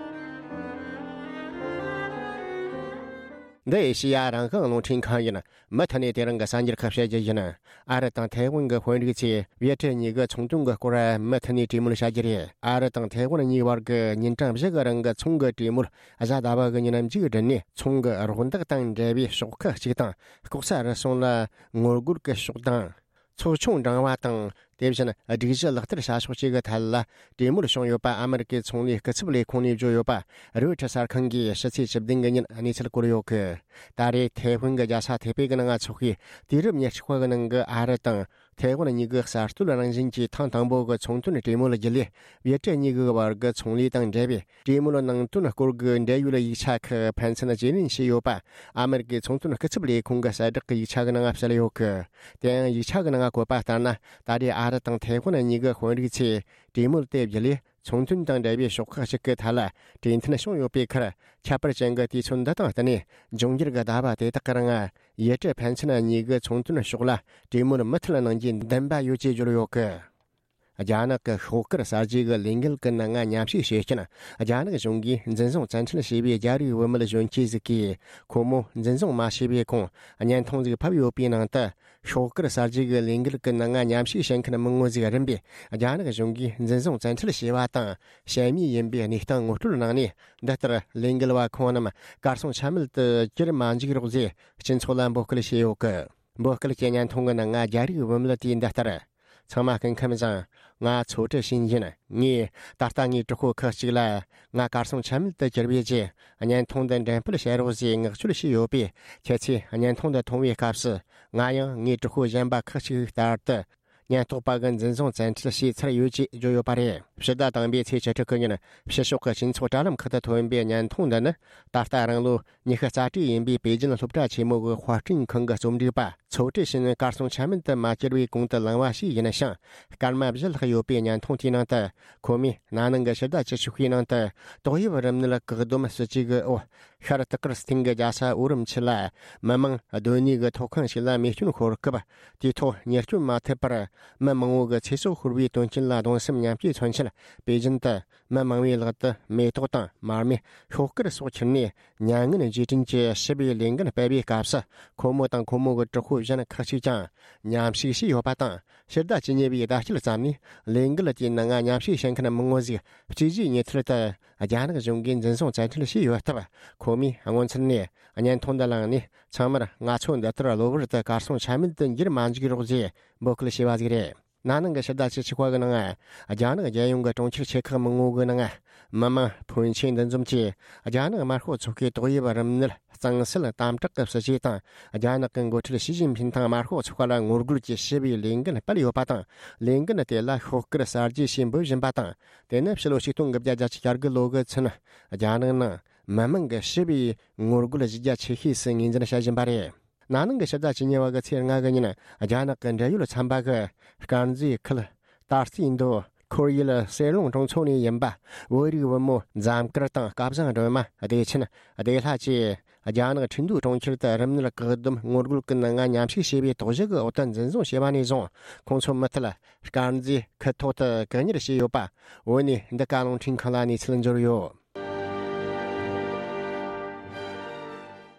འདི་ཨེ་ཤེ་ཡ་རང་དབང་རླུང་འཕྲིན་ཁང་ཡིན། མུ་མཐུད་ནས་དེ་རིང་གི་གསར་འགྱུར་ཁག་བཤད་རྒྱུ་ཡིན། ཨ་རི་དང་ཐའེ་ཝན་གྱི་དཔོན་རིགས་ཚོས་ཝེ་ཏྲེ་གཉིས་ཀྱི་ཚོང་དོན་གྱི་སྐོར་མུ་མཐུད་ནས་གྲོས་མོལ་བྱ་རྒྱུ་རེད། ཨ་རི་དང་ཐའེ་ཝན་གཉིས་བར་གྱི་ཉིན་གྲངས་བཞི་གི་རིང་གི་ཚོང་གི་གྲོས་མོལ་གཟའ་ཟླ་བ་གི་ཉིན་མཇུག་བསྒྲིལ་ནས། ཚོང་གི་རོགས་འདེགས་དང་འབྲེལ་བའི་ཕྱོགས་ཁག་ཅིག་དང་། ལྐོག་ཟ་རུལ་སུངས་ལ་ངོ་རྒོལ་གྱི་ཕྱོགས་དང་། ཚོགས་ཆུང་འབྲིང་བ་དང་། དེ་བཞིན་སྒྲིག་གཞི་ལག་བསྟར་བྱ་ཕྱོགས་བཅས་ཀྱི་ཐད་ལ་གྲོས་མོལ་བྱུང་ཡོད་པ་ཨ་མེ་རི་ཀའི་ཚོང་ལས་སྐུ་ཚབ་ལས་ཁུངས་ནས་བརྗོད་ཡོད་པ་རོའི་ཊར་གསར་ཁང་གིས་ཕྱི་ཚེས་བཅུ་བདུན་གི་ཉིན་གནས་ཚུལ་བཀོད་ཡོད་གི། ད་རེས་ཐའེ་ཝན་གྱི་རྒྱལ་ས་ཐའེ་པེ་གི་ནང་འཚོགས་པའི་དུས་རབས་ཉེར་གཅིག་པ་གི་ནང་གི་ཨ་རི་དང་ཐའེ་ཝན་གཉིས་ཀྱི་གསར་གཏོད་རང་བཞིན་གྱི་ཐེངས་དང་པོ་གི་ཚོང་དོན་གྲོས་མོལ་བརྒྱུད་ལས། ཝེ་ཏྲེ་གཉིས་ཀྱི་བར་གྱི་ཚོང་ལས་དང་འབྲེལ་བའི་གྲོས་མོལ་ནང་དོན་སྐོར་གྱི་འབྲེལ་ཡོད་ཡིག་ཆ་ཁག་ཕན་ཚུན་བརྗེ་ལེན་བྱས་ཡོད་པ་ཨ་མེ་རི་ཀའི་ཚོང་དོན་སྐུ་ཚབ་ལས་ཁུངས་ཀྱི་གསལ་བསྒྲགས་ཀྱི་ཡིག་ཆ་གི་ནང་གསལ་ཡོད་གི། དེ་ཡང་ཡིག་ཆ་གི་ནང་བཀོད་པ་ལྟར་ན། ད་རེས་ཨ་རི་དང་ཐའེ་ཝན་གཉིས་ཀྱི་དཔོན་རིགས་ཚོས་གྲོས་མོལ་དེ་བརྒྱུད་ལས། ཚོང་དོན་དང་འབྲེལ་བའི་ཕྱོགས་ཁག་ཅིག་གི་ཐད་ལ་གྲོས་མཐུན་བྱུང་ཡོད་པའི་ཁར། ཁྱད་པར་ཅན་གྱི་དུས་ཚོད་འདི་དང་བསྟུན་ནས། འབྱུང་འགྱུར་གྱི་ཟླ་བ་དེ་དག་གི་རིང་། ཝེ་ཏྲེ་ཕན་ཚུན་གཉིས་ཀྱི་ཚོང་དོན་ཕྱོགས་ལ་གྲོས་མོལ་མུ་མཐུད་གནང་རྒྱུའི་འདུན་པ་ཡོད་ཅེས་བརྗོད་ཡོད་གི། རྒྱ་ནག་གི་ཤོག་དཀར་གསར་བརྗེ་གི་ལས་འགུལ་གྱི་ནང་ང་མཉམ་ཞུགས་བྱེད་མཁན་རྒྱ་ནག་གཞུང་གིས་འཛིན་བཟུང་བཙན་ཁྲིད་བྱས་པའི་རྒྱ་རིགས་བུད་མེད་གཞོན་སྐྱེས་ཟིག་གིས། ཁོ་མོ་འཛིན་བཟུང་མ་བྱས་པའི་གོང་བརྙན་ཐུང་ཟིག་ཕབ་ཡོད་པའི་ནང་དུ། ཤོག་དཀར་གསར་བརྗེ་གི་ལས་འགུལ་གྱི་ནང་ང་མཉམ་ཞུགས་བྱེད་མཁན་མི་ངོ་ཟིག་རིམ་པས་རྒྱ་ནག་གཞུང་གིས་འཛིན་བཟུང་བཙན་ཁྲིད་བྱས་པ་དང་། ཞན་མི་ཡིན་པའི་གནས་སྟངས་ངོ་སྤྲོད་གནང་ནས། འདི་ལྟར་ལས་འགུལ་བ་ཁོང་རྣམས་གར་སོང་ཆ་མེད་དུ་གྱུར་མ་འཇུག་རོགས་ཞེས་སྤྱི་ཚོགས་ལ་འབོད་སྐུལ་བྱས་ཡོད་གི། འབོད་སྐུལ་གྱི་བརྙན་ཐུང་གི་ནང་ང་རྒྱ་རིགས་བུད་མེད་དེས་འདི་ལྟར། ཚང་མ་སྐུ་ཁམས་བཟང་། ང་ཚོ་ཁྲི་ཤིན་ཡིན། ངས་ད་ལྟ་ངའི་གྲོགས་པོ་ཁག་ཅིག་ལ། ང་གར་སོང་ཆ་མེད་དུ་གྱུར་པའི་རྗེས། བརྙན་ཐུང་འདི་འགྲེམས་སྤེལ་བྱེད་རོགས་ཞེས་མངགས་བཅོལ་བྱས་ཡོད་པས། ཁྱེད་ཚོས་བརྙན་ཐུང་འདི་མཐོང་བའི་སྐབས་སུ། ང་ཡང་ངའི་གྲོགས་པོ་གཞན་པ་ཁག་ཅིག་ལྟར་དུ། ཉེན་རྟོག་པ་གི་འཛིན་བཟུང་བཙན་ཁྲིད་བྱས་ཚར་ཡོད་ཅེས་བརྗོད་ཡོད་པ་རེད། ཕྱི་ཟླ་དང་པོའི་ཚེས་བཅུ་དྲུག་གི་ཉིན། ཕྱི་ཕྱོགས་ཀྱི་སྤྱི་ཚོགས་དྲ་ལམ་ཁག་ཏུ་ཐོན་པའི་བརྙན་ཐུང་འདི་ནི། ད་ལྟ་རང་ལོ་ཉི་ཤུ་རྩ་དྲུག་ཡིན་པའི་པེ་ཅིན་སློབ་གྲྭ་ཆེན་མོ་གི་དཔར་སྐྲུན་ཁང་གི་རྩོམ་སྒྲིག་པ། ཚོ་ཁྲི་ཤིན་གར་སོང་ཆ་མེད་དུ་མ་གྱུར་བའི་གོང་དུ་ལངས་པ་ཞིག་ཡིན་ཞིང་། སྐར་མ་བཞི་ལྷག་ཡོད་པའི་བརྙན་ཐུང་དེའི་ནང་དུ། ཁོ་མོས་ན་ནིང་གི་ཕྱི་ཟླ་བཅུ་གཅིག་པའི་ནང་དུ། ཏོག་དབྱིབས་རིམས་ནད་བཀག་སྡོམ་སྲིད་ཇུས་ཀྱི་འོག་ཤར་ཏི་ཀིར་སྟེང་གི་རྒྱལ་ས་ཨོ་རིམ་ཆི་ལ། མི་མང་སྡོད་གནས་ཀྱི་ཐོག་ཁང་ཞིག་ལ་རྨས་སྐྱོན་ཤོར་སྐབས། དེའི་ཐོག་ཉེས་སྐྱོན་མ་ཐེབས་པར། མི་མང་བོ་གི་ཚེ་སྲོག་ཤོར་བའི་དོན་རྐྱེན་ལ་གདུང་སེམས་མཉམ་སྐྱེད་མཚོན་ཆེད། པེ་ཅིན་དུ། མི་མང་བོའི་ལག་ཏུ་མེ་ཏོག་དང་མར་མེ། ཤོག་དཀར་སོགས་ཁྱེར་ནས། མྱ་ངན་རྗེས་དྲན་གྱི་ཞི་བའི་ལས་འགུལ་སྤེལ་བའི་སྐབས་སུ། ཁོ་མོ་དང་ཁོ་མོ་གི་གྲོགས་པོ་གཞན་ཁག་ཅིག་ཀྱང་མཉམ་ཞུགས་བྱས་ཡོད་པ་དང་། ཕྱི་ཟླ་བཅུ་གཉིས་པའི་ཟླ་དཀྱིལ་ཙམ་ནས། ལས་འགུལ་དེའི་ནང་མཉམ་ཞུགས་བྱེད་མཁན་མི་ངོ་ཟིག་སྤྱི་གཞིས་ཉེ་ཐར་དུ། རྒྱ་ནག་གཞུང་གིས་འཛིན་བཟུང་བཙན་ཁྲིད་བྱས་ཡོད་སྟབས། ཁོ་མོས་སྔོན་ཚུད་ནས་བརྙན་ཐུང་འདི་བླངས་ནས། ཚང་མར་ང་ཚོ་འདི་ལྟར་གློ་བུར་དུ་གར་སོང་ཆ་མེད་དུ་འགྱུར་མ་འཇུག་རོགས་ཞེས་འབོད་སྐུལ་བྱས་པ་ཟིག་རེད། ན་ནིང་གི་ཕྱི་ཟླ་བཅུ་གཅིག་པ་གི་ནང་། རྒྱ་ནག་རྒྱལ་ཡོངས་ཀྱི་གྲོང་ཁྱེར་ཆེ་ཁག་མི་ངོ་གི་ནང་། མི་མང་ཕོན་ཆེན་འདུ་འཛོམས་ཀྱིས། རྒྱ་ནག་དམར་ཤོག་ཚོགས་ཁག་གི་ཏོག་དབྱིབས་རིམས་ནད་གཙང་སེལ་དམ་དྲག་གི་སྲིད་ཇུས་དང་། རྒྱ་ནག་གི་འགོ་ཁྲིད་ཞི་ཅིན་ཕིན་དང་དམར་ཤོག་ཚོགས་པ་ལ་ངོ་རྒོལ་གྱི་ཞི་བའི་ལས་འགུལ་སྤེལ་ཡོད་པ་དང་། ལས་འགུལ་དེ་ལ་ཤོག་དཀར་གསར་བརྗེ་ཞེས་འབོད་བཞིན་པ་དང་། དེ་ནི་ཕྱི་ལོ་ཆིག་སྟོང་དགུ་བརྒྱ་བརྒྱད་ཅུ་གྱ་དགུ་ལོ་གི་ཚུན། རྒྱ་ནག་ནང་མི་མང་གི་ཞི་བའི་ངོ་རྒོལ་གཞི་རྒྱ་ཆེ་ཤོས་སུ་ངོས་འཛིན་བྱ་བཞིན་པ་རེད། ན་ནིང་གི་ཕྱི་ཟླ་བཅུ་གཉིས་པ་གི་ཚེས་ལྔ་གི་ཉིན། རྒྱ་ནག་གི་འབྲེལ་ཡོད་ཚན་པ་གིས། དཀར་མཛེས་ཁུལ། ཏཱ་རྩེ་མདོ། ཁོར་ཡུལ་གསེར་ལུང་གྲོང་ཚོ་ནས་ཡིན་པ། བོད་རིགས་བུ་མོ་འཛོམས་དཀར་དང་སྐལ་བཟང་སྒྲོལ་མ། བདེ་ཆེན། བདེ་ལྷ་བཅས། རྒྱ་ནག་ཁྲིན་ཏུའུ་གྲོང་ཁྱེར་དུ་རིམས་ནད་བཀག་སྡོམ་ངོ་རྒོལ་གྱི་ནང་མཉམ་ཞུགས་བྱས་པའི་དོགས་གཞི་གི་འོག་ཏུ་འཛིན་བཟུང་བྱས་པ་ནས་བཟུང་། ཁོང་ཚོ་མུ་མཐུད། དཀར་མཛེས་ཁུལ་ཐོག་ཏུ་བཀག་ཉར་བྱས་ཡོད་པ། བོད་ནས་འདི་ག་རླུང་འཕྲིན་ཁང་ལ་གནས་ཚུལ་འབྱོར་ཡོད།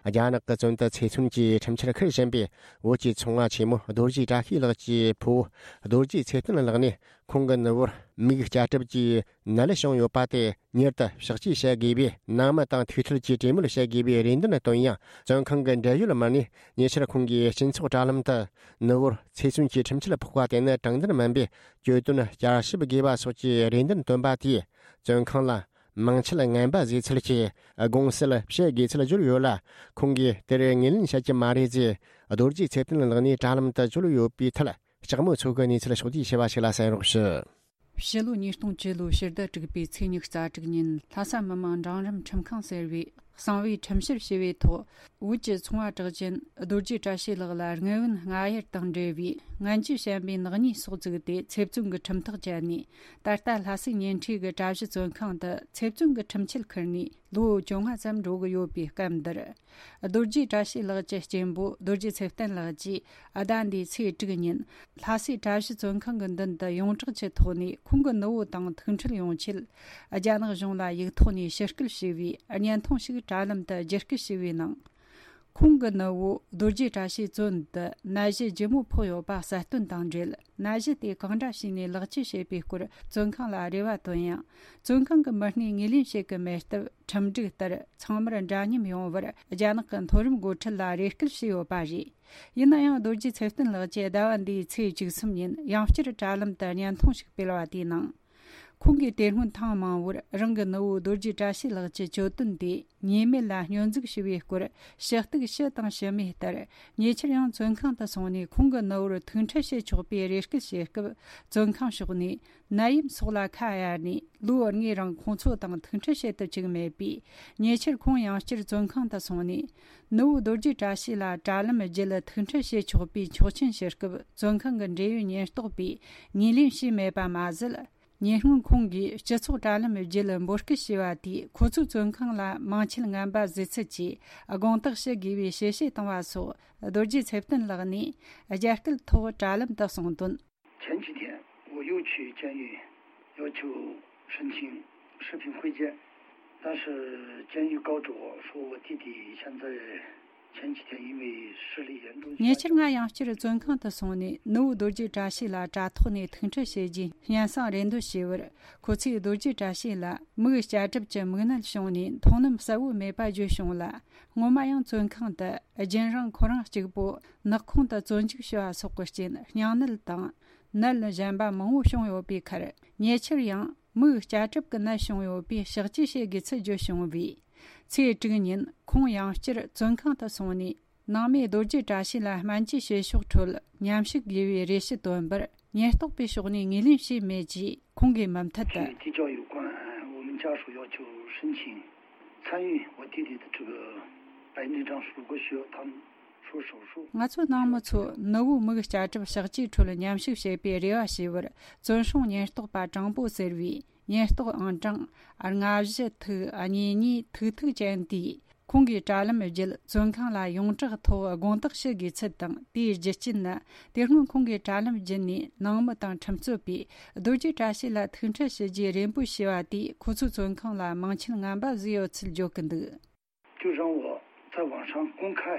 རྒྱ་ནག་གི་བཙོན་དུ་ཚེ་བཙོན་གྱི་ཁྲིམས་འཆར་འཁུར་བཞིན་པའི་བོད་ཀྱི་ཚོང་བ་ཆེན་མོ་རྡོ་རྗེ་བཀྲ་ཤིས་ལགས་ཀྱི་ཕུ་བོ་རྡོ་རྗེ་ཚེ་བརྟན་ལགས་ནས། ཁོང་གི་ནུ་བོར་མིག་སྐྱ་གྲིབ་ཀྱིས་ནད་བྱུང་ཡོད་པ་དེ་མྱུར་དུ་ཕྱག་བཅོས་བྱ་དགོས་པའི་ནང་མི་དང་ཐུགས་ཁྲལ་གྱིས་གྲོས་མོལ་བྱ་དགོས་པའི་རེ་འདུན་བཏོན་ཡང་། བཙོན་ཁང་གི་འབྲེལ་ཡོད་མི་སྣས་ཉེ་ཆར་ཁོང་གིས་སྤྱི་ཚོགས་དྲ་ལམ་དུ་ནུ་བོར་ཚེ་བཙོན་གྱི་ཁྲིམས་ཆད་ཕོག་པ་དེ་ནི་དྲང་བདེན་མིན་པའི་གྱོད་དོན་བསྐྱར་ཞིབ་དགོས་པ་སོགས་ཀྱི་རེ་འདུན་བཏོན་པ་དེས། བཙོན་ཁང་ལ་མིང་ཆད་ངན་པ་བཟོས་ཚུལ་གྱི་དགོངས་སེལ་བྱེད་དགོས་ཚུལ་བརྗོད་ཡོད་ལ། ཁོང་གིས་དེར་ངོས་ལེན་བྱ་རྒྱུ་མ་རེད་ཅེས་རྡོ་རྗེ་ཚེ་བརྟན་ལགས་ནས་དྲ་ལམ་དུ་བརྗོད་ཡོད་པའི་ཐད། ལྕགས་མོ་མཚོ་གི་གནས་ཚུལ་ཕྱོགས་བསྡུས་ཞུ་བ་ཞིག་ལ་གསན་རོགས་ཞུ། ཕྱི་ལོ་ཉིས་སྟོང་བཅུ་ལོའི་ཕྱི་ཟླ་དྲུག་པའི་ཚེས་ཉི་ཤུ་རྩ་དྲུག་ཉིན། ལྷ་ས་མི་དམངས་འབྲིང་རིམ་ཁྲིམས་ཁང་ཟེར་བས་གསང་བའི་ཁྲིམས་བཤེར་ཞུ་བའི་ཐོག་བོད་ཀྱི་ཚོང་བ་གྲགས་ཅན་རྡོ་རྗེ་བཀྲ་ཤིས་ལགས་ལ་དངུལ་བུན་སྔ་གཡེར་དང་འབྲེལ་བའི་ངན་ཇུས་བཤད་པའི་ནག་ཉེས་སོགས་བཙུགས་ཏེ་ཚེ་བཙོན་གྱི་ཁྲིམས་ཐག་བཅད་ནས། ད་ལྟ་ལྷ་སའི་ཉེ་འཁྲིས་ཀྱི་གྲྭ་བཞི་བཙོན་ཁང་དུ་ཚེ་བཙོན་གྱི་ཁྲིམས་ཆད་ཁུར་ནས་ལོ་བཅོ་ལྔ་ཙམ་འགྲོ་གི་ཡོད་པའི་སྐབས་འདིར། རྡོ་རྗེ་བཀྲ་ཤིས་ལགས་ཀྱི་གཅེན་པོ་རྡོ་རྗེ་ཚེ་བརྟན་ལགས་ཀྱིས་ཟླ་འདིའི་ཚེས་དྲུག་ཉིན་ལྷ་སའི་གྲྭ་བཞི་བཙོན་ཁང་གི་མདུན་དུ་ཡོངས་གྲགས་ཀྱི་ཐོག་ནས་ཁོང་གི་ནུ་བོ་དང་ཐུག་འཕྲད་ཡོང་ཆེད་རྒྱ་ནག་གཞུང་ལ་ཡིག་ཐོག་ནས་ཞུ་སྐུལ་ཞུས་པའི་བརྙན་ཐུང་ཞིག་དྲ་ལམ་དུ་བརྒྱུད་སྐུལ་ཞུས་པའི་ནང་། ཁོང་གི་ནུ་བོ་རྡོ་རྗེ་བཀྲ་ཤིས་བཙོན་དུ་ནད་གཞི་ལྗིད་མོ་ཕོག་ཡོད་པ་གསལ་སྟོན་དང་འབྲེལ། ནད་གཞི་དེ་གང་འདྲ་བྱས་ནས་ལེགས་བཅོས་བྱེད་པའི་སྐོར་བཙོན་ཁང་ལ་རེ་བ་བཏོན་ཡང་། བཙོན་ཁང་གི་མི་སྣས་ངོས་ལེན་བྱེད་ཀྱི་མེད་སྟབས། ཁྲིམས་སྒྲིག་ལྟར་ཚང་མར་འདྲ་མཉམ་ཡོང་བར་རྒྱ་ནག་གི་མཐོ་རིམ་འགོ་ཁྲིད་ལ་རེ་སྐུལ་བྱས་ཡོད་པ་རེད། ཡིན་ན་ཡང་། རྡོ་རྗེ་ཚེ་བརྟན་ལགས་ཀྱིས་ཟླ་བ་འདིའི་ཚེས་བཅུ་གསུམ་ཉིན་ཡང་བསྐྱར་དྲ་ལམ་དུ་བརྙན་ཐུང་ཞིག་སྤེལ་བ་དེའི་ནང་། ཁོང་གིས་དེ་སྔོན་ཐེངས་མང་བོར་རང་གི་ནུ་བོ་རྡོ་རྗེ་བཀྲ་ཤིས་ལགས་ཀྱི་གྱོད་དོན་དེ་ཉེས་མེད་ལ་སྙོན་འཛུགས་ཞུ་བའི་སྐོར་ཞུ་གཏུག་ཞུས་དང་ཞུས་མེད་ལྟར། ཉེ་ཆར་ཡང་བཙོན་ཁང་དུ་སོང་ནས་ཁོང་གི་ནུ་བོར་ཐུག་འཕྲད་བྱེད་ཆོག་པའི་རེ་སྐུལ་བྱེད་སྐབས། བཙོན་ཁང་ཕྱོགས་ནས་ནད་ཡམས་སོགས་ལ་ཁ་གཡར་ནས། ལོ་ལྔའི་རིང་ཁོང་ཚོ་དང་ཐུག་འཕྲད་བྱེད་ཐུབ་ཅིག་མེད་པས། ཉེ་ཆར་ཁོང་ཡང་བསྐྱར་བཙོན་ཁང་དུ་སོང་ནས། ནུ་བོ་རྡོ་རྗེ་བཀྲ་ཤིས་ལ་དྲ་ལམ་བརྒྱུད་ཐུག་འཕྲད་བྱེད་ཆོག་པའི་ཆོག་མཆན་ཞུ་སྐབས། བཙོན་ཁང་གི་འབྲེལ་ཡོད་ཉེན་རྟོག་པས་ངོས་ལེན་བྱས་མེད་པ་མ་ཟད། ཉེ་སྔོན་ཁོང་གིས་སྤྱི་ཚོགས་དྲ་ལམ་བརྒྱུད་འབོད་སྐུལ་བྱས་པ་དེས། ཁོ་ཚོའི་བཙོན་ཁང་ལ་མིང་ཆད་ངན་པ་བཟོས་ཚུལ་གྱི་དགོངས་དག་ཞུ་དགོས་པའི་ཞལ་བཞེས་བཏང་བ་སོགས། རྡོ་རྗེ་ཚེ་བརྟན་ལགས་ནས་རྒྱ་སྐད་ཐོག་དྲ་ལམ་དུ་གསུངས་དོན། 前几天，我又去监狱要求申请视频会见，但是监狱告诉我说，我弟弟现在前几天因为视力严重下降。 ཉེ་ཆར་ང་ཡང་བསྐྱར་བཙོན་ཁང་དུ་སོང་ནས། ནུ་བོ་རྡོ་རྗེ་བཀྲ་ཤིས་ལ་དྲ་ཐོག་ནས་ཐུག་འཕྲད་བྱེད་རྒྱུའི་སྙན་སེང་རེ་འདོན་བྱས་པར། ཁོ་ཚོས་རྡོ་རྗེ་བཀྲ་ཤིས་ལ་མིག་སྐྱ་གྲིབ་ཀྱི་མིག་ནད་བྱུང་ནས་མཐོང་ལམ་གསལ་བོ་མེད་པ་བརྗོད་བྱུང་ལ། སྔོན་མ་ཡང་བཙོན་ཁང་དུ་རྒྱུན་རིང་ཁོ་རང་གཅིག་པུ་ནག་ཁུང་དུ་བཙོན་འཇུག་བྱས་པ་སོགས་ཀྱི་རྐྱེན། སྙིང་ནད་དང་ནད་གཞན་པ་མང་བོ་བྱུང་ཡོད་པའི་ཁར། ཉེ་ཆར་ཡང་མིག་སྐྱ་གྲིབ་ཀྱི་ནད་བྱུང་ཡོད་པས་ཕྱག་བཅོས་བྱེད་དགོས་ཚུལ་བརྗོད་བྱུང་བས། ཚེས་དྲུག་ཉིན་ཁོང་ཡང་བསྐྱར་བཙོན་ཁང་དུ་སོང་ནས། ནང་མི་རྡོ་རྗེ་བཀྲ་ཤིས་ལ་སྨན་བཅོས་བྱེད་ཕྱོགས་ཁྲོད་མཉམ་ཞུགས་དགོས་པའི་རེ་ཞུ་བཏོན་པར། ཉེན་རྟོག་པའི་ཕྱོགས་ནས་ངོས་ལེན་བྱས་མེད་ཅེས་ཁོང་གིས་མུ་མཐུད་དུ། 是的， 我们家属要求申请参与我弟弟的这个白内障，如果需要他们说手术。 ང་ཚོ་ནང་མི་ཚོ་ནུ་བོའི་མིག་སྐྱ་གྲིབ་ཕྱག་བཅོས་ཁྲོད་མཉམ་ཞུགས་བྱེད་པའི་རེ་བ་བྱས་པར། བཙོན་སྲུང་ཉེན་རྟོག་པ་དྲང་པོ་ཟེར་བའི་ཉེན་རྟོག་ཨང་གྲངས་ལྔ་བཞི་ཐིག་གཉིས་གཉིས་ཐིག་ཐིག་ཅན་དེས། ཁོང་གིས་དྲ་ལམ་བརྒྱུད་བཙོན་ཁང་ལ་ཡོངས་གྲགས་ཐོག་དགོངས་དག་ཞུ་དགོས་ཚུལ་དང་། དེའི་རྒྱུ་རྐྱེན་ནི། དེ་སྔོན་ཁོང་གིས་དྲ་ལམ་བརྒྱུད་ནས་ནང་མི་དང་ཁྲིམས་རྩོད་པས་རྡོ་རྗེ་བཀྲ་ཤིས་ལ་ཐུག་འཕྲད་ཞུ་རྒྱུའི་རེ་འབོད་བྱས་པ་དེས། ཁོ་ཚོའི་བཙོན་ཁང་ལ་མིང་ཆད་ངན་པ་བཟོས་ཡོད་ཚུལ་བརྗོད་ཀྱི་འདུག 就让我在网上公开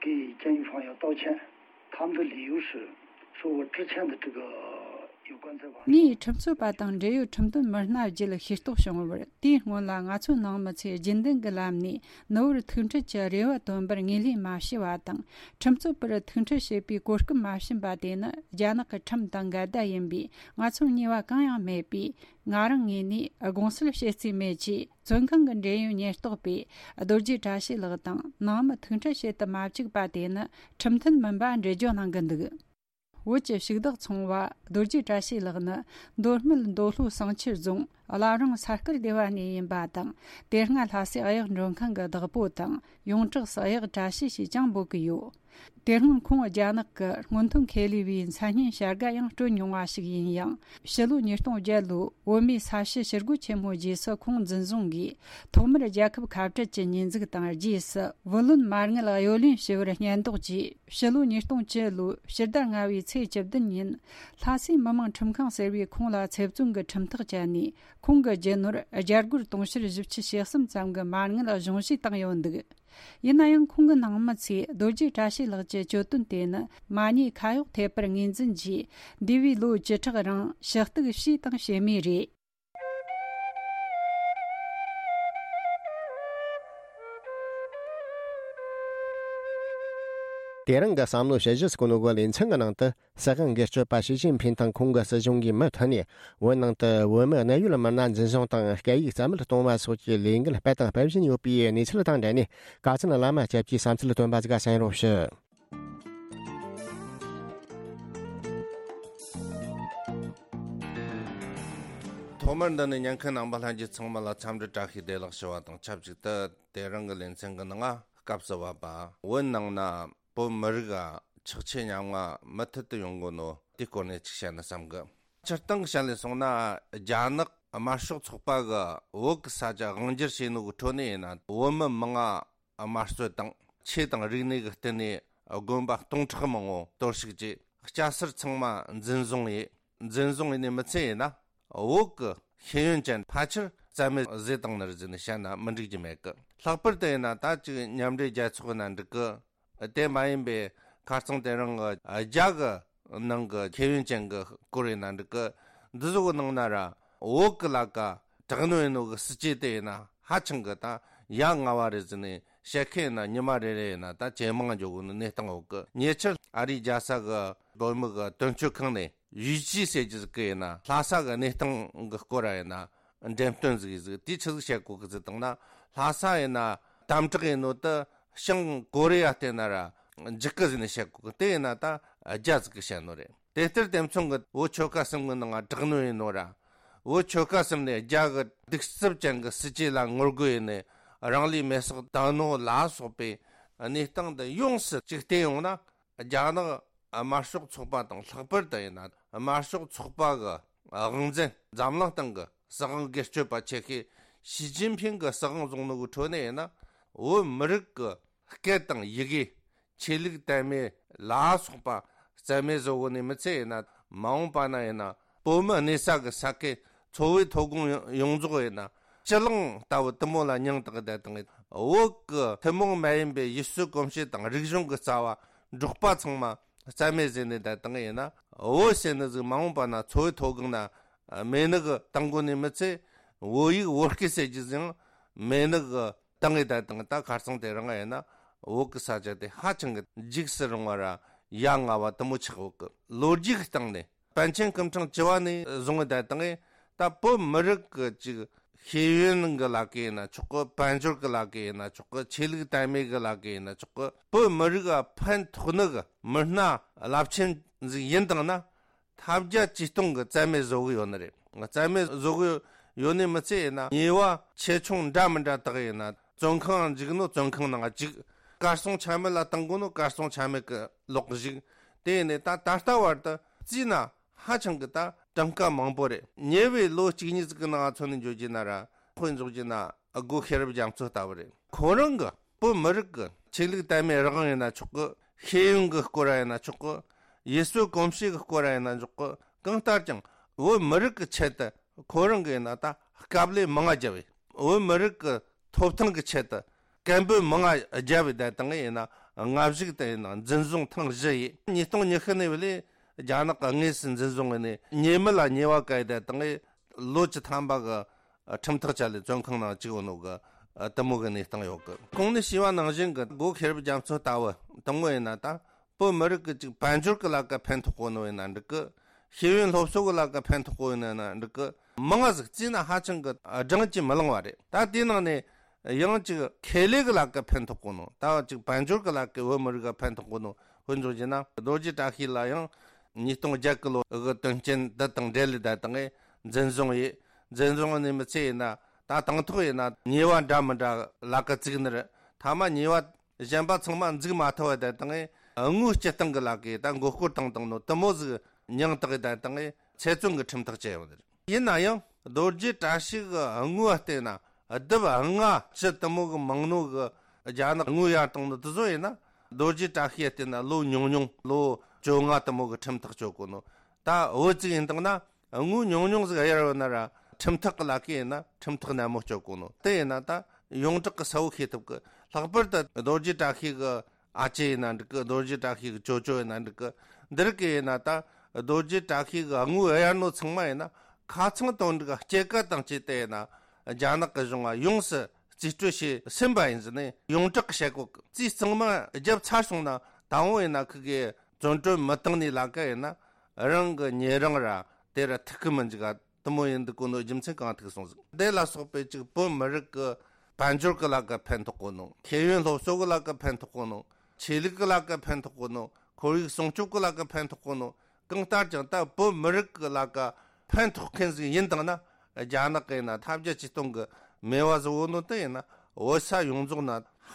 给监狱方要道歉，他们的理由是说我之前的这个有关在网上 ངས་ཁྲིམས་རྩོད་པ་དང་འབྲེལ་ཡོད་ཁྲིམས་དོན་མི་སྣ་བརྒྱུད་ཤེས་རྟོགས་བྱུང་བར། དེའི་སྔོན་ལ་ང་ཚོའི་ནང་མི་ཚོས་རྒྱུན་ལྡན་གྱི་ལམ་ནས་ནུ་བོར་ཐུག་འཕྲད་ཀྱི་རེ་བ་བཏོན་པར་ངོས་ལེན་མ་བྱས་པ་དང་། ཁྲིམས་རྩོད་པར་ཐུག་འཕྲད་བྱེད་པའི་གོ་སྐབས་མ་བྱིན་པ་དེ་ནི་རྒྱ་ནག་གི་ཁྲིམས་དང་འགལ་ཟླ་ཡིན་པས། ང་ཚོར་ཉེས་པ་གང་ཡང་མེད་པས། ང་རང་ངོས་ནས་དགོངས་སེལ་བྱེད་རྩིས་མེད་ཅེས། བཙོན་ཁང་གི་འབྲེལ་ཡོད་ཉེན་རྟོག་པས་རྡོ་རྗེ་བཀྲ་ཤིས་ལགས་དང་ནང་མི་ཐུག་འཕྲད་བྱེད་དུ་མ་བཅུག་པ་དེ་ནི་ཁྲིམས་མཐུན་མིན་པ་འགྲེལ་བརྗོད་གནང་གི་འདུག་བོད་ཀྱི་ཕྱུགས་བདག་ཚོང་བ་རྡོ་རྗེ་བཀྲ་ཤིས་ལགས་ནི་མདོ་སྨད་མདོ་ལྷོ་བསང་ཆུ་རྫོང་བླ་བྲང་ས་དཀར་སྡེ་བ་ནས་ཡིན་པ་དང་། དེ་སྔ་ལྷ་སའི་གཡག་མགྲོན་ཁང་གི་བདག་པོ་དང་། ཡོངས་གྲགས་སུ་གཡག་བཀྲ་ཤིས་ཞེས་ཀྱང་འབོད་ཀྱི་ཡོད། དེ་སྔོན་ཁོང་རྒྱ་ནག་གི་སྔོན་ཐོན་ཁེ་ལས་པའི་མཚན་སྙན་བྱ་དགའ་ཡང་སྤྲོད་མྱོང་བ་ཞིག་ཡིན་ཡང་། ཕྱི་ལོ་ཉིས་སྟོང་བརྒྱད་ལོའི་བོད་མིའི་ས་བྱི་ཞི་རྒོལ་ཆེན་མོའི་རྗེས་སུ་ཁོང་འཛིན་བཟུང་གིས། ཐོག་མར་རྒྱལ་ཁབ་ཁ་བྲལ་གྱི་ཉེས་འཛུགས་དང་། རྗེས་སུ་བུ་ལོན་མ་དངུལ་གཡོ་ལེན་ཞུ་བར་སྙད་འདོགས་ཀྱིས། ཕྱི་ལོ་ཉིས་སྟོང་བཅུ་ལོའི་ཕྱི་ཟླ་ལྔ་བའི་ཚེས་བཅུ་བདུན་ཉིན། ལྷ་སའི་མི་དམངས་ཁྲིམས་ཁང་ཟེར་བས་ཁོང་ལ་ཚེ་བཙོན་གྱི་ཁྲིམས་ཐག་བཅད་ནས། ཁོང་གི་རྒྱུ་ནོར་བརྒྱ་སྒོར་དུང་ཕྱུར་བཞི་བཅུ་ཞེ་གསུམ་ཙམ་གྱི་མ་དངུལ་གཞུང་བཞེས་བཏང་ཡོད་འདུག་ཡིན་ན་ཡང་ཁོང་གི་ནང་མི་ཚོས་རྡོ་རྗེ་བཀྲ་ཤིས་ལགས་ཀྱི་གྱོད་དོན་དེ་ནི་མ་ཉེས་ཁ་གཡོག་ཐེབས་པར་ངོས་འཛིན་གྱིས། འདས་པའི་ལོ་བཅུ་ཕྲག་རིང་ཞུ་གཏུག་བྱས་དང་བྱེད་མུས་རེད། དེ་རིང་གི་བསམ་བློ་ཞིབ་བཤེར་སྐོར་ནོ་གི་ལེ་ཚན་གྱི་ནང་དུ། སྲིད་དབང་སྒེར་གཅོད་པ་ཞི་ཅིན་ཕིན་དང་ཁོང་གི་སྲིད་གཞུང་གིས་མུ་མཐུད་ནས་བོད་ནང་དུ་བོད་མི་གནད་ཡོད་མི་སྣ་འཛིན་བཟུང་དང་སྐད་ཡིག་རྩ་མེད་གཏོང་བ་སོགས་ཀྱི་ལས་འགུལ་སྤེལ་དང་སྤེལ་བཞིན་ཡོད་པའི་གནས་ཚུལ་དང་འབྲེལ་ནས། ཀ་ཚན་བླ་མ་སྐྱབས་ཀྱིས་བསམ་ཚུལ་བཏོན་པ་ཟིག་གསན་རོགས་ཞུ། ཐོག་མར་འདི་ནས་ཉན་མཁན་རྣམ་པ་ལྷན་རྒྱས་ཚང་མ་ལ་འཚམས་འདྲི་བཀྲ་ཤིས་བདེ་ལེགས་ཞུ་བ་དང་ཆབས་ཅིག་ཏུ། དེ་རིང་གི་ལེ་ཚན་གྱི་ནང་སྐབས་སུ་བབ་པ་བོད་ནང་ན་བོད་མི་རིགས་ཆགས་ཆེ་ཉམ་ང་མུ་མཐུད་དུ་ཡོང་གོ་ནོ་དེའི་སྐོར་ནས་ཅིག་བཤད་ན་བསམ་གི། སྤྱིར་བཏང་བཤད་ལས་སོང་ན། རྒྱ་ནག་དམར་ཤོག་ཚོགས་པ་གི་བོད་ཀྱི་ས་ཆ་དབང་སྒྱུར་བྱས་ནོ་གི་ཁྲོད་ནས་ཡིན་ན། བོད་མི་མང་ང་དམར་གསོད་དང་། ཆོས་དང་རིག་གནས་ཀྱི་སྟེང་ནས་དགོན་པ་སྟོང་ཕྲག་མང་བོ་གཏོར་བཤིག་བྱས། སྐྱ་སེར་ཚང་མ་འཛིན་བཟུང་ཡིན། འཛིན་བཟུང་ཡིན་ནི་མི་ཚད་ཡིན་ན། བོད་ཀྱི་ཤེས་ཡོན་ཅན་ཕལ་ཆེར་རྩ་མེད་བཟོས་བཏང་ནི་རེད་ཟེར་ནས་བཤད་ན་མི་འགྲིག་རྒྱུ་མེད་གི། ལྷག་པར་དུ་ཡིན་ན་ད་ཅིག་མཉམ་འབྲེལ་རྒྱལ་ཚོགས་ཡིན་ན་འགྲིག་གི། དེ་མ་ཡིན་པའི་ཁ་རྩང་དེ་རིང་གི་རྒྱ་གི་ནང་གི་ཤེས་ཡོན་ཅན་གི་སྐོར་ཡིན་ན་འགྲིག་གི། འདི་ཚོ་གི་ནང་ན་ར་བོད་གི་ལ་ཀ་དྲག་གནོན་ཡིན་ནོ་གི་སྲིད་ཇུས་དེ་ཡིན་ན་ཧ་ཅང་གི་ད་ཡ་ང་བ་རེད་ཟེར་ནས་བཤད་མཁན་ཡིན་ན་ཉི་མ་རེ་རེ་ཡིན་ན་ད་ཇེ་མང་འགྱོ་གི་ནི་གནས་སྟངས་ཡོད་གི། ཉེ་ཆར་ཨ་རིའི་རྒྱལ་ས་གི་བོད་མི་གི་དོན་གཅོད་ཁང་ནས་ཡུས་ཅི་ཟེར་རྒྱུ་ཟིག་གི་ཡིན་ན་ལྷ་ས་གི་གནས་སྟངས་གི་སྐོར་ར་ཡིན་ན། འགྲེམས་སྟོན་ཟིག་ཡིན་ཟིག་དེ་ཆི་ཟིག་བཤད་གོ་གི་ཟིག་བཏང་ན། ལྷ་ས་ཡིན་ན་དམ་དྲག་ཡིན་ནོ་དེ་བྱང་ཀོ་རི་ཡ་བལྟས་ན་ར་འཇིག་གི་ཟིག་ནས་བཤད་གོ་གི། དེ་ཡིན་ན་ད་རྒྱ་ཟིག་གི་བཤད་ནོ་རེད། དེ་ལྟར་དེ་མཚུངས་གི་བོད་ཆོལ་ཁ་གསུམ་གི་ནང་དྲག་གནོན་ཡིན་ནོ་ར། བོད་ཆོལ་ཁ་གསུམ་ནས་རྒྱ་གི་གདུག་རྩུབ་ཅན་གི་སྲིད་ཇུས་ལ་ངོ་རྒོལ་ཡིན་ནས་རང་ལུས་མེར་སྲེག་བཏང་ནོ་ལ་སོགས་པའི་གནས་སྟངས་འདི་ཡོངས་སུ་གཅིག་བལྟས་ཡོང་ན། རྒྱ་ནག་དམར་ཤོག་ཚོགས་པ་དང་ལྷག་པར་དུ་ཡིན་ན་དམར་ཤོག་ཚོགས་པ་གི་དབང་འཛིན། འཛམ་གླིང་སྟེང་གི་སྲིད་དབང་སྒེར་གཅོད་པ་ཆེ་ཤོས་ཞི་ཅིན་ཕིང་གི་སྲིད་དབང་བཟུང་ནོ་གི་ཁྲོད་ནས་ཡིན་ན། བོད་མི་རིགས་ཀྱི་སྐད་དང་ཡི་གེ། ཆོས་ལུགས་དད་མོས་ལ་སོགས་པ་རྩ་མེད་བཟོ་གོ་ནི་མི་ཚད་ཡིན་ན། མ་འོངས་པ་ན་ཡིན་ན་བོད་མི་གནས་ས་གི་ས་ཁུལ། འཚོ་བའི་ཐོན་ཁུངས་ཡོངས་རྫོགས་ཡིན་ན་སྤྱི་གླིང་ལྟ་བུ་དེ་མོ་ལ་མྱིང་བཏགས་བསྡད་དང་། བོད་ཀྱི་ཐུན་མོང་མ་ཡིན་པའི་ཡུལ་སྲོལ་གོམས་གཤིས་དང་རིག་གཞུང་གི་རྩ་བ་འབྲོག་པ་ཚང་མ་རྩ་མེད་བཟོས་ནས་བསྡད་དང་ཡིན་ན། བོད་ཟེར་ནི་ཟིག་མ་འོངས་པ་ན་འཚོ་བའི་ཐོན་ཁུངས་ན་མེད་ནི་གི་བཏང་གོ་ནི་མི་ཚད། བོད་ཡིག་བོད་སྐད་ཟེར་རྒྱུ་ཟིག་མེད་ནི་གི་བཏང་ངེ་བསྡད་དང་། ད་ཁ་རྩང་དེ་རིང་ཡིན་ན་བོད་ཀྱི་ས་ཆ་དེ་ཧ་ཅང་གི་འཇིགས་སུ་རུང་བ་ར་ཡ་ང་བ་དེ་མོ་ཆགས་ཡོད་གི། ལོ་རྒྱུས་ཀྱི་སྟེང་ནས། པཎ་ཆེན་སྐུ་ཕྲེང་བཅུ་བ་ནས་བཟུང་བའི་བརྡ་དང་། ད་བོད་མི་རིགས་ཀྱི་ཅིག་ཤེས་ཡོན་གྱི་ལ་ཀ་ཡིན་ན་ཆོག་གི། དཔལ་འབྱོར་གྱི་ལ་ཀ་ཡིན་ན་ཆོག་གི། ཆོས་ལུགས་དད་མོས་གྱི་ལ་ཀ་ཡིན་ན་ཆོག་གི། བོད་མི་རིགས་ལ་ཕན་ཐོགས་ནི་གི་མི་སྣ་རླབས་ཆེན་ཟིག་ཡིན་དང་ན། ཐབས་བརྒྱ་ཇུས་སྟོང་གི་རྩ་མེད་བཟོ་གི་ཡོད་ནི་རེད། རྩ་མེད་བཟོ་གི་ཡོད་ནི་མི་ཚད་ཡིན་ན། ཉེས་པ་ཆེ་ཆུང་འདྲ་མི་འདྲ་དག་ཡིན་ན། བཙོན་ཁང་འཇུག་ནོ་བཙོན་ཁང་ནང་འཇུག། གར་སོང་ཆ་མེད་ལ་བཏང་དགོས་ནོ་གར་སོང་ཆ་མེད་གི་ལོག་བཞུགས། དེ་ཡིན་ནས་ད་ད་ལྟ་བར་དུ་བརྩིས་ན་ཧ་ཅང་གི་ད་གྲངས་ཀ་མང་པོ་རེད། ཉེ་བའི་ལོ་གཅིག་གཉིས་ཟིག་གི་ནང་ང་མཚོན་ནས་འཇོག་རྒྱུ་ན་ར། དཔེ་འཇོག་རྒྱུ་ན་སྒོ་ཤེས་རབ་རྒྱ་མཚོ་ལྟ་བུ་རེད། ཁོ་རང་གི་བོད་མི་རིགས་ཀྱི་ཆོས་ལུགས་དད་མོས་རང་དབང་ཡིན་ན་ཆོག་གི། ཤེས་ཡོན་གྱི་སྐོར་ར་ཡིན་ན་ཆོག་གི། ཡུལ་སྲོལ་གོམས་གཤིས་ཀྱི་སྐོར་ར་ཡིན་ན་ཆོག་གི། གང་ལྟར་ཀྱང་བོད་མི་རིགས་ཀྱི་ཆེད་དུ་ཁོ་རང་གིས་ཡིན་ན་ད་དཀའ་ལས་མང་ང་བརྒྱབ་བས། བོད་མི་རིགས་ཀྱི་ཐོབ་ཐང་གི་ཆེད་དུ་སྐད་འབོད་མང་ང་བརྒྱབ་བས། ད་དང་ཡིན་ན་སྔ་གཞུག་ཏུ་ཡིན་ན་འཛིན་བཟུང་ཐེངས་བཞི་ཡིས། ཉིས་སྟོང་ཉི་ཤུ་ནས་བ་ལས་རྒྱ་ནག་གིས་དངོས་སུ་འཛིན་བཟུང་བས་ནས། ཉེས་མེད་ལ་ཉེས་པ་བཀལ། ད་དང་ལོ་བཅུ་ཐམ་པ་གི་ཁྲིམས་ཐག་བཅད་ལས་བཙོན་ཁང་ནང་བཅུག་ཡོད་ནོ་གི་དེ་མོ་གི་གནས་སྟངས་ཡོད་གི། གོང་ནས་ཞུས་པ་ནང་བཞིན་གི་སྒོ་ཤེས་རབ་རྒྱ་མཚོ་ལྟ་བུ་དེ་མོ་ཡིན་ན་ད། བོད་མི་རིགས་ཀྱི་ཅིག་དཔལ་འབྱོར་གྱི་ལ་ཀ་ཕན་ཐོགས་གོ་ནོ་ཡིན་ན་འགྲིག་གི། ཤེས་ཡོན་སློབ་གསོ་གི་ལ་ཀ་ཕན་ཐོགས་གོ་ཡིན་ན་འགྲིག་གི། མང་ང་ཟིག་བརྩིས་ན་ཧ་ཅང་གི་བགྲང་གིས་མི་ལང་བ་རེད། ད་དེའི་ནང་ནས་ཡང་ཅིག་ཁེ་ལས་གི་ལ་ཀ་ཕན་ཐོགས་གོ་ནོ། ད་ཅིག་དཔལ་འབྱོར་གི་ལ་ཀ་བོད་མི་རིགས་ལ་ཕན་ཐོགས་གོ་ནོ་དཔེ་འཇོག་རྒྱུ་ན། རྡོ་རྗེ་བཀྲ་ཤིས་ལ་ཡང་ཉིས་སྟོང་བརྒྱད་གི་ལོ་གི་དོན་རྐྱེན་འདི་དང་འབྲེལ་ལས་ད་དང་འཛིན་བཟུང་ཡིས། འཛིན་བཟུང་ནས་མི་ཚད་ཡིན་ན་ད་དང་ཐོག་ཡིན་ན་ཉེས་པ་འདྲ་མི་འདྲ་ལ་ཀ་བཙུགས་ནི་རེད། མཐའ་མ་ཉེས་པ་གཞན་པ་ཚང་མ་འཛུགས་མ་ཐུབ་པ་བསྡད་དང་། དངུལ་སྤྱི་བཏང་གི་ལ་ཀའི་ད་མགོ་སྐོར་བཏང་བཏང་ནོ་དེ་མོ་ཟིག་མྱིང་བཏགས་བསྡད་དང་། ཚེ་བཙོན་གྱི་ཁྲིམས་ཐག་བཅད་ཡོད་རེད། ཡིན་ན་ཡང་རྡོ་རྗེ་བཀྲ་ཤིས་གི་དངུལ་བ་བལྟས་ན་ལྡབ་ལྔ་བཅུ་དེ་མོ་གི་མང་ནོ་གི། རྒྱ་ནག་དངུལ་གཡར་བཏང་ནོ་དེ་ཚོ་ཡིན་ན། རྡོ་རྗེ་བཀྲ་ཤིས་བལྟས་ན་ལོ་ཉུང་ཉུང་ལོ་བཅོ་ལྔ་དེ་མོ་གི་ཁྲིམས་ཐག་གཅོད་གོ་ནོ། ད་བོད་ཅིག་ཡིན་དང་ན། དངུལ་ཉུང་ཉུང་ཟིག་གཡར་ཡོད་ན་ར་ཁྲིམས་ཐག་གི་ལ་ཀ་ཡིན་ན་ཁྲིམས་ཐག་ནན་མོ་གཅོད་གོ་ནོ། དེ་ཡིན་ན་ད་ ཡོངས་གྲགས་ཀྱི་གསལ་བོ་ཤེས་ཐུབ་གི། ལྷག་པར་དུ་རྡོ་རྗེ་བཀྲ་ཤིས་ཀྱི་ཨ་ཅེ་ཡིན་ན་འགྲིག་གི། རྡོ་རྗེ་བཀྲ་ཤིས་ཀྱི་ཅོ་ཅོ་ཡིན་ན་འགྲིག་གི། འདི་རིགས་ཀྱི་ཡིན་ན་ད་རྡོ་རྗེ་བཀྲ་ཤིས་ཀྱི་དངོས་གཡར་ནོ་ཚང་མ་ཡིན་ན་ཁ་ཚང་དོན་འགྲིག་སྐྱེད་ཀ་དང་བཅས་ཏེ་ཡིན་ན་རྒྱ་ནག་གི་གཞུང་ང་ཡོངས་སུ་རྩིས་སྤྲོད་བྱས་ཟིན་པ་ཡིན་ཟེར་ནས་ཡོངས་གྲགས་ཀྱི་བཤད་གོ་གི། རྩིས་གཙང་མ་བརྒྱབ་ཚར་སོང་ན་ད་འོང་ཡིན་ན་ཁི་གེ་བཙོན་གྲོལ་མི་བཏང་ནས་ལ་ཀ་ཡིན་ན་རང་གི་ཉེ་རིང་ར་དེ་ར་ཐུག་གི་མི་འཇུག་ག། དུ་མོ་ཡིན་འདུག་གོ་ནོ་རྒྱུ་མཚན་གང་ཐུག་སོང་ཟིག། དེ་ལ་སོགས་པའི་ཅིག་བོད་མི་རིགས་ཀྱི་དཔལ་འབྱོར་གྱི་ལ་ཀ་ཕན་ཐོགས་གོ་ནོ། ཤེས་ཡོན་སློབ་གསོ་གི་ལ་ཀ་ཕན་ཐོགས་གོ་ནོ། ཆོས་ལུགས་ཀྱི་ལ་ཀ་ཕན་ཐོགས་གོ་ནོ། ཁོར་ཡུག་སྲུང་སྐྱོབ་ཀྱི་ལ་ཀ་ཕན་ཐོགས་གོ་ནོ། གང་ལྟར་ཀྱང་ད་བོད་མི་རིགས་ཀྱི་ལ་ཀ་ཕན་ཐོགས་མཁན་ཟིག་ཡིན་དང་ན། རྒྱ་ནག་གི་ཡིན་ན་ཐབས་བརྒྱ་ཇུས་སྟོང་གི་མེ་བ་ཟིག་བོ་ནོ་དེ་ཡིན་ན་བོད་ས་ཡོངས་རྫོགས་ན་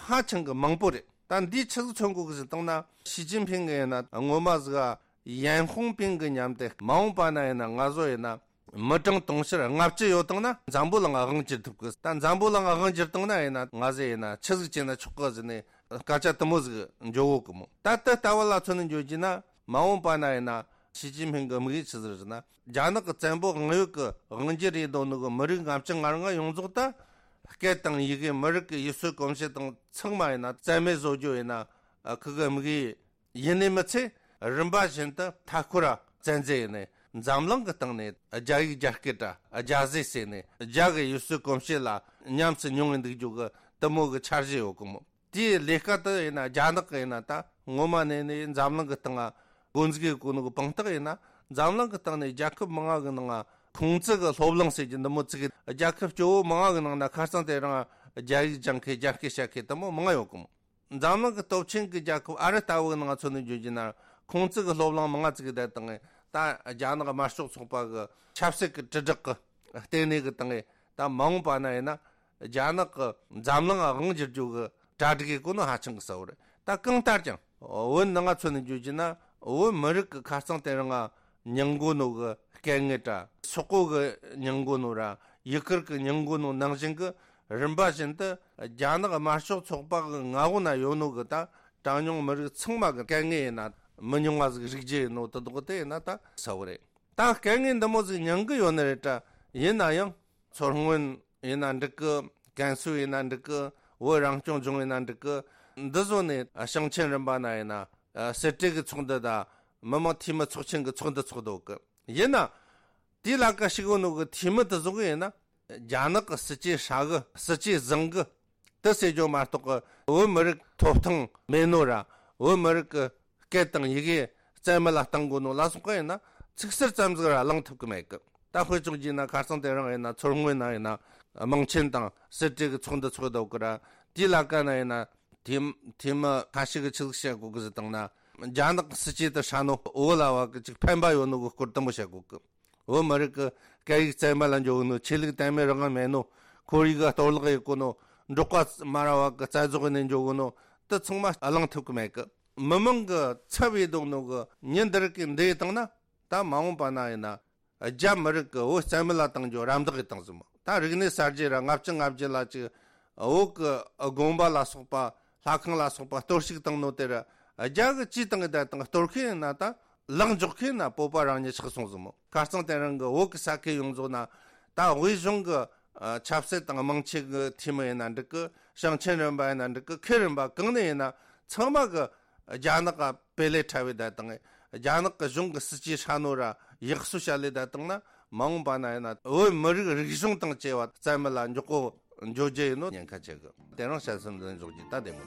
ཧ་ཅང་གི་མང་པོ་རེད། ད་འདིའི་ཆི་ཟིག་མཚོན་གོ་གི་ཟིག་བཏང་ན། ཞི་ཅིན་ཕིང་གི་ཡིན་ན་ངོ་མ་ཟིག་ཡན་ཧུང་པིང་གི་མཉམ་དེ་མ་འོངས་པ་ན་ཡིན་ན་ང་ཚོ་ཡིན་ན་མི་གྲངས་དུང་ཕྱུར་ལྔ་བཅུ་ཡོད་དང་ན་འཛམ་བུ་གླིང་དབང་བསྒྱུར་ཐུབ་གི། ད་འཛམ་བུ་གླིང་དབང་བསྒྱུར་བཏང་ན་ཡིན་ན་ང་ཟེ་ཡིན་ན་ཆི་ཟིག་བྱས་ན་ཆོག་གི་ཟེར་ནས་སྐད་ཆ་དུ་མོ་ཟིག་འཇོག་གོ་གི་མོ། ད་ལྟ་ལྟ་བ་ལ་མཚོན་ནས་འཇོག་རྒྱུ་ན་མ་འོངས་པ་ན་ཡིན་ན་ཞི་ཅིན་ཕིང་གི་དམིགས་ཡུལ་ཆི་ཟིག་ཟེར་ན། རྒྱ་ནག་གི་བཙན་པོ་དབང་ཡོད་གི་དབང་བསྒྱུར་རེད་འདོད་ནོ་གི་མི་རིགས་ལྔ་བཅུ་ང་ལྔ་ཡོངས་རྫོགས་ད་སྐད་དང་ཡི་གེ་མི་རིགས་ཀྱི་ཡུལ་སྲོལ་གོམས་གཤིས་དང་ཚང་མ་ཡིན་ན་རྩ་མེད་བཟོ་རྒྱུ་ཡིན་ན་ཁི་གི་དམིགས་ཡུལ་ཡིན་ནི་མི་ཚད་རིམ་པ་བཞིན་དུ་མཐའ་འཁོར་བཙན་འཛུལ་ཡིན་ནས་འཛམ་གླིང་གི་སྟེང་ནས་རྒྱ་ཡིག་རྒྱ་སྐད་དྲ་རྒྱ་ཟས་ཟེར་ནས་རྒྱ་གི་ཡུལ་སྲོལ་གོམས་གཤིས་ལ་ཉམས་སུ་མྱོང་བའི་འདུག་རྒྱུ་གི་དུ་མོ་གི་འཆར་གཞི་ཡོད་གི་མོ། དེའི་ལས་ཀ་དུ་ཡིན་ན་རྒྱ་ནག་གི་ཡིན་ན་ད་ངོ་མ་ནས་ནས་འཛམ་གླིང་གི་སྟེང་ང་འགོ་འཛུགས་ཡོད་གོ་ནོ་གི་དཔང་རྟགས་ཡིན་ན་འཛམ་གླིང་གི་སྟེང་ནས་རྒྱལ་ཁབ་མང་ང་གི་ནང་ང་ཁུང་ཙི་གི་སློབ་གླིང་ཟེར་གྱི་འདི་མོ་བཙུགས་གི། རྒྱལ་ཁབ་སྐྱོ་བོ་མང་ང་གི་ནང་ན་ཁ་སང་དེ་རིང་རྒྱ་ཡིག་སྦྱང་མཁན་རྒྱ་སྐད་བཤད་མཁན་དུ་མོ་མང་ང་ཡོད་གི་མོ། འཛམ་གླིང་གི་སྟོབས་ཆེན་གྱི་རྒྱལ་ཁབ་ཨ་རི་ལྟ་བུ་གི་ནང་ཚོ་ནས་བརྗོད་རྒྱུ་ན་ཁུང་ཙི་གི་སློབ་གླིང་མང་ང་བཙུགས་གི་བསྡད་དང་ད་རྒྱ་ནག་དམར་ཤོག་ཚོགས་པ་གི་ཆབ་སྲིད་ཀྱི་དྲིལ་བསྒྲགས་ཀྱི་ལྟེ་གནས་གི་སྟེང་ད་མ་འོངས་པ་ན་ཡིན་ན་རྒྱ་ནག་གི་འཛམ་གླིང་དབང་བསྒྱུར་རྒྱུ་གི་གྲ་སྒྲིག་གི་གོ་ནོ་ཧ་ཅང་གི་གསལ་བོ་རེད། ད་གང་ལྟར་ཀྱང་བོད་ནང་ང་ཚོ་ནས་བརྗོད་རྒྱུ་ན་བོད་མི་རིགས་ཀྱི་ཁ་རྩང་དེ་རིང་ང་མྱང་དགོས་ནོ་གི་སྐད་ངན་དྲ་སོག་པོ་གི་མྱང་དགོས་ནོ་ར་ཡུ་གུར་གི་མྱང་དགོས་ནོ་ནང་བཞིན་གི་རིམ་པ་བཞིན་དུ་རྒྱ་ནག་དམར་ཤོག་ཚོགས་པ་གི་མངའ་འོག་ན་ཡོད་ནོ་གི་ད་གྲངས་ཉུང་མི་རིགས་ཚང་མ་གི་སྐད་ངན་ཡིན་ན་མི་ཉུང་བ་ཟིག་རིག་རྒྱུ་ཡིན་ནོ་དེ་དག་དེ་ཡིན་ན་ད་གསལ་བོ་རེད། ད་སྐད་ངན་འདི་མོ་ཟིག་མྱང་གི་ཡོད་ནི་རེད་དྲ། ཡིན་ན་ཡང་མཚོ་སྔོན་ཡིན་ན་འགྲིག་གི། ཀན་སུའུ་ཡིན་ན་འགྲིག་གི། བོད་རང་སྐྱོང་ལྗོངས་ཡིན་ན་འགྲིག་གི། འདི་བཟོ་ནས་ཞིང་ཆེན་རིམ་པ་ན་ཡིན་ན་སྲིད་གྲོས་ཀྱི་ཚོགས་འདུ་དང་མི་དམངས་འཐུས་མི་ཚོགས་ཆེན་གྱི་ཚོགས་འདུ་ཚོགས་འདུག་གི། ཡིན་ན་དེའི་ལ་ཀ་ཞུགས་ཡོད་ནོ་གི་འཐུས་མི་དེ་ཚོ་གི་ཡིན་ན་རྒྱ་ནག་གི་སྲིད་ཇུས་ཧྲ་གི་སྲིད་ཇུས་བཟང་གི་དེ་ཟེར་རྒྱུ་མ་གཏོགས་གི་བོད་མི་རིགས་ཐོབ་ཐང་མེད་ནོ་ར་བོད་མི་རིགས་ཀྱི་སྐད་དང་ཡི་གེ་རྩ་མེད་ལ་གཏང་དགོས་ནོ་ལ་སོགས་པ་ཡིན་ན་ཚིག་ཟུར་ཙམ་ཟིག་ར་གླེང་ཐུབ་ཀྱི་མེད་གི། ད་དཔེ་བཅོ་རྒྱུ་ན་ཁ་སང་དེ་རིང་ཡིན་ན་མཚོ་སྔོན་ན་ཡིན་ན་དམངས་ཆེན་དང་སྲིད་གྲོས་ཀྱི་ཚོགས་འདུ་ཚོགས་འདུག་གི་ར། དེའི་ལ་ཀ་ན་ཡིན་ན་དེ་དེ་མི་ཁ་ཤས་ཀྱི་ཆི་ཟིག་བཤད་དགོས་གི་ཟིག་བཏང་ན་རྒྱ་ནག་སྲིད་ཇུས་དེ་ཧྲ་ནོ་བོད་ལ་བ་གི་ཅིག་ཕན་པ་ཡོད་ནོ་གི་སྐོར་དུ་མོ་བཤད་དགོས་གི། བོད་མི་རིགས་ཀྱི་སྐད་ཡིག་རྩ་མེད་ལ་འཇོག་གི་ནོ། ཆོས་ལུགས་དད་མོས་རང་དབང་མེད་ནོ། ཁོར་ཡུག་གཏོར་བརླག་ཡེད་གོ་ནོ། འབྲོག་པ་མ་ར་བ་གི་རྩ་རྫོགས་ནས་འཇོག་གི་ནོ། དེ་ཚང་མ་གླེང་ཐུབ་ཀྱི་མེད་གི། མི་མང་གི་ཚབ་ཡེད་འདུག་ནོ་གི་ཉིན་འདི་རིགས་ཀྱི་འདི་ཡེད་བཏང་ན་ད་མ་འོངས་པ་ན་ཡིན་ན་རྒྱ་མི་རིགས་ཀྱི་བོད་རྩ་མེད་ལ་བཏང་རྒྱུ་རམ་འདེགས་ཡེད་བཏང་ཟིན་མོ། ད་རིག་གནས་གསར་བརྗེ་ར་ལྔ་བཅུ་ང་བརྒྱད་ལ་ཅིག་བོད་ཀྱི་དགོན་པ་ལ་སོགས་པ་ལྷ་ཁང་ལ་སོགས་པ་གཏོར་བཤིག་བཏང་ནོ་དེ་ར་རྒྱ་གི་ཅིས་བཏང་གི་བསྡད་དང་གཏོར་མཁན་ཡིན་ན་ད་ལག་འཇོག་མཁན་ན་བོད་པ་རང་ཉིད་ཆགས་སོང་ཟིན་མོ། ཁ་རྩང་དེ་རིང་གི་བོད་ཀྱི་ས་ཁུལ་ཡོངས་རྫོགས་ན་ད་དབུས་གཞུང་གི་ཆབ་སྲིད་དང་དམངས་ཆེན་གྱི་འཐུས་མི་ཡིན་ན་འགྲིག་གི། ཞིང་ཆེན་རིམ་པ་ཡིན་ན་འགྲིག་གི། ཁུལ་རིམ་པ་གང་ནས་ཡིན་ན་ཚང་མ་གི་རྒྱ་ནག་ག་བེ་ལེ་ཁྲ་བའི་བསྡད་དང་རྒྱ་ནག་གི་གཞུང་གི་སྲིད་ཇུས་ཧྲ་ནོ་ར་ཡག་སུ་བྱ་ལས་བསྡད་དང་ན་མ་འོངས་པ་ན་ཡིན་ན་བོད་མི་རིགས་རིག་གཞུང་དང་བཅས་པ་རྩ་མེད་ལ་འཇོག་གོ་འཇོག་རྒྱུ་ཡིན་ནོ་ཉེན་ཁ་ཆེ་གི། དེ་རིང་བཤད་སེམས་འཛིན་འཇོག་རྒྱུ་ད་བདེ་མོ།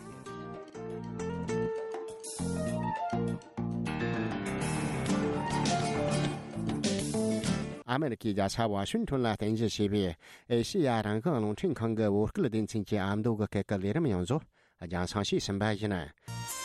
ཨ་མེ་རི་ཁའི་རྒྱལ་ས་ཝ་ཤིང་ཊོན་ལ་རྟེན་གཞི་བྱས་པའི་ཨེ་ཤེ་ཡ་རང་དབང་རླུང་འཕྲིན་ཁང་གི་བོད་སྐད་སྡེ་ཚན་གྱི་ཨ་མདོ་གི་སྐད་ཀྱི་ལས་རིམ་ཡོངས་རྫོགས་རྒྱང་སྲིང་ཞུས་ཟིན་པ་ཡིན།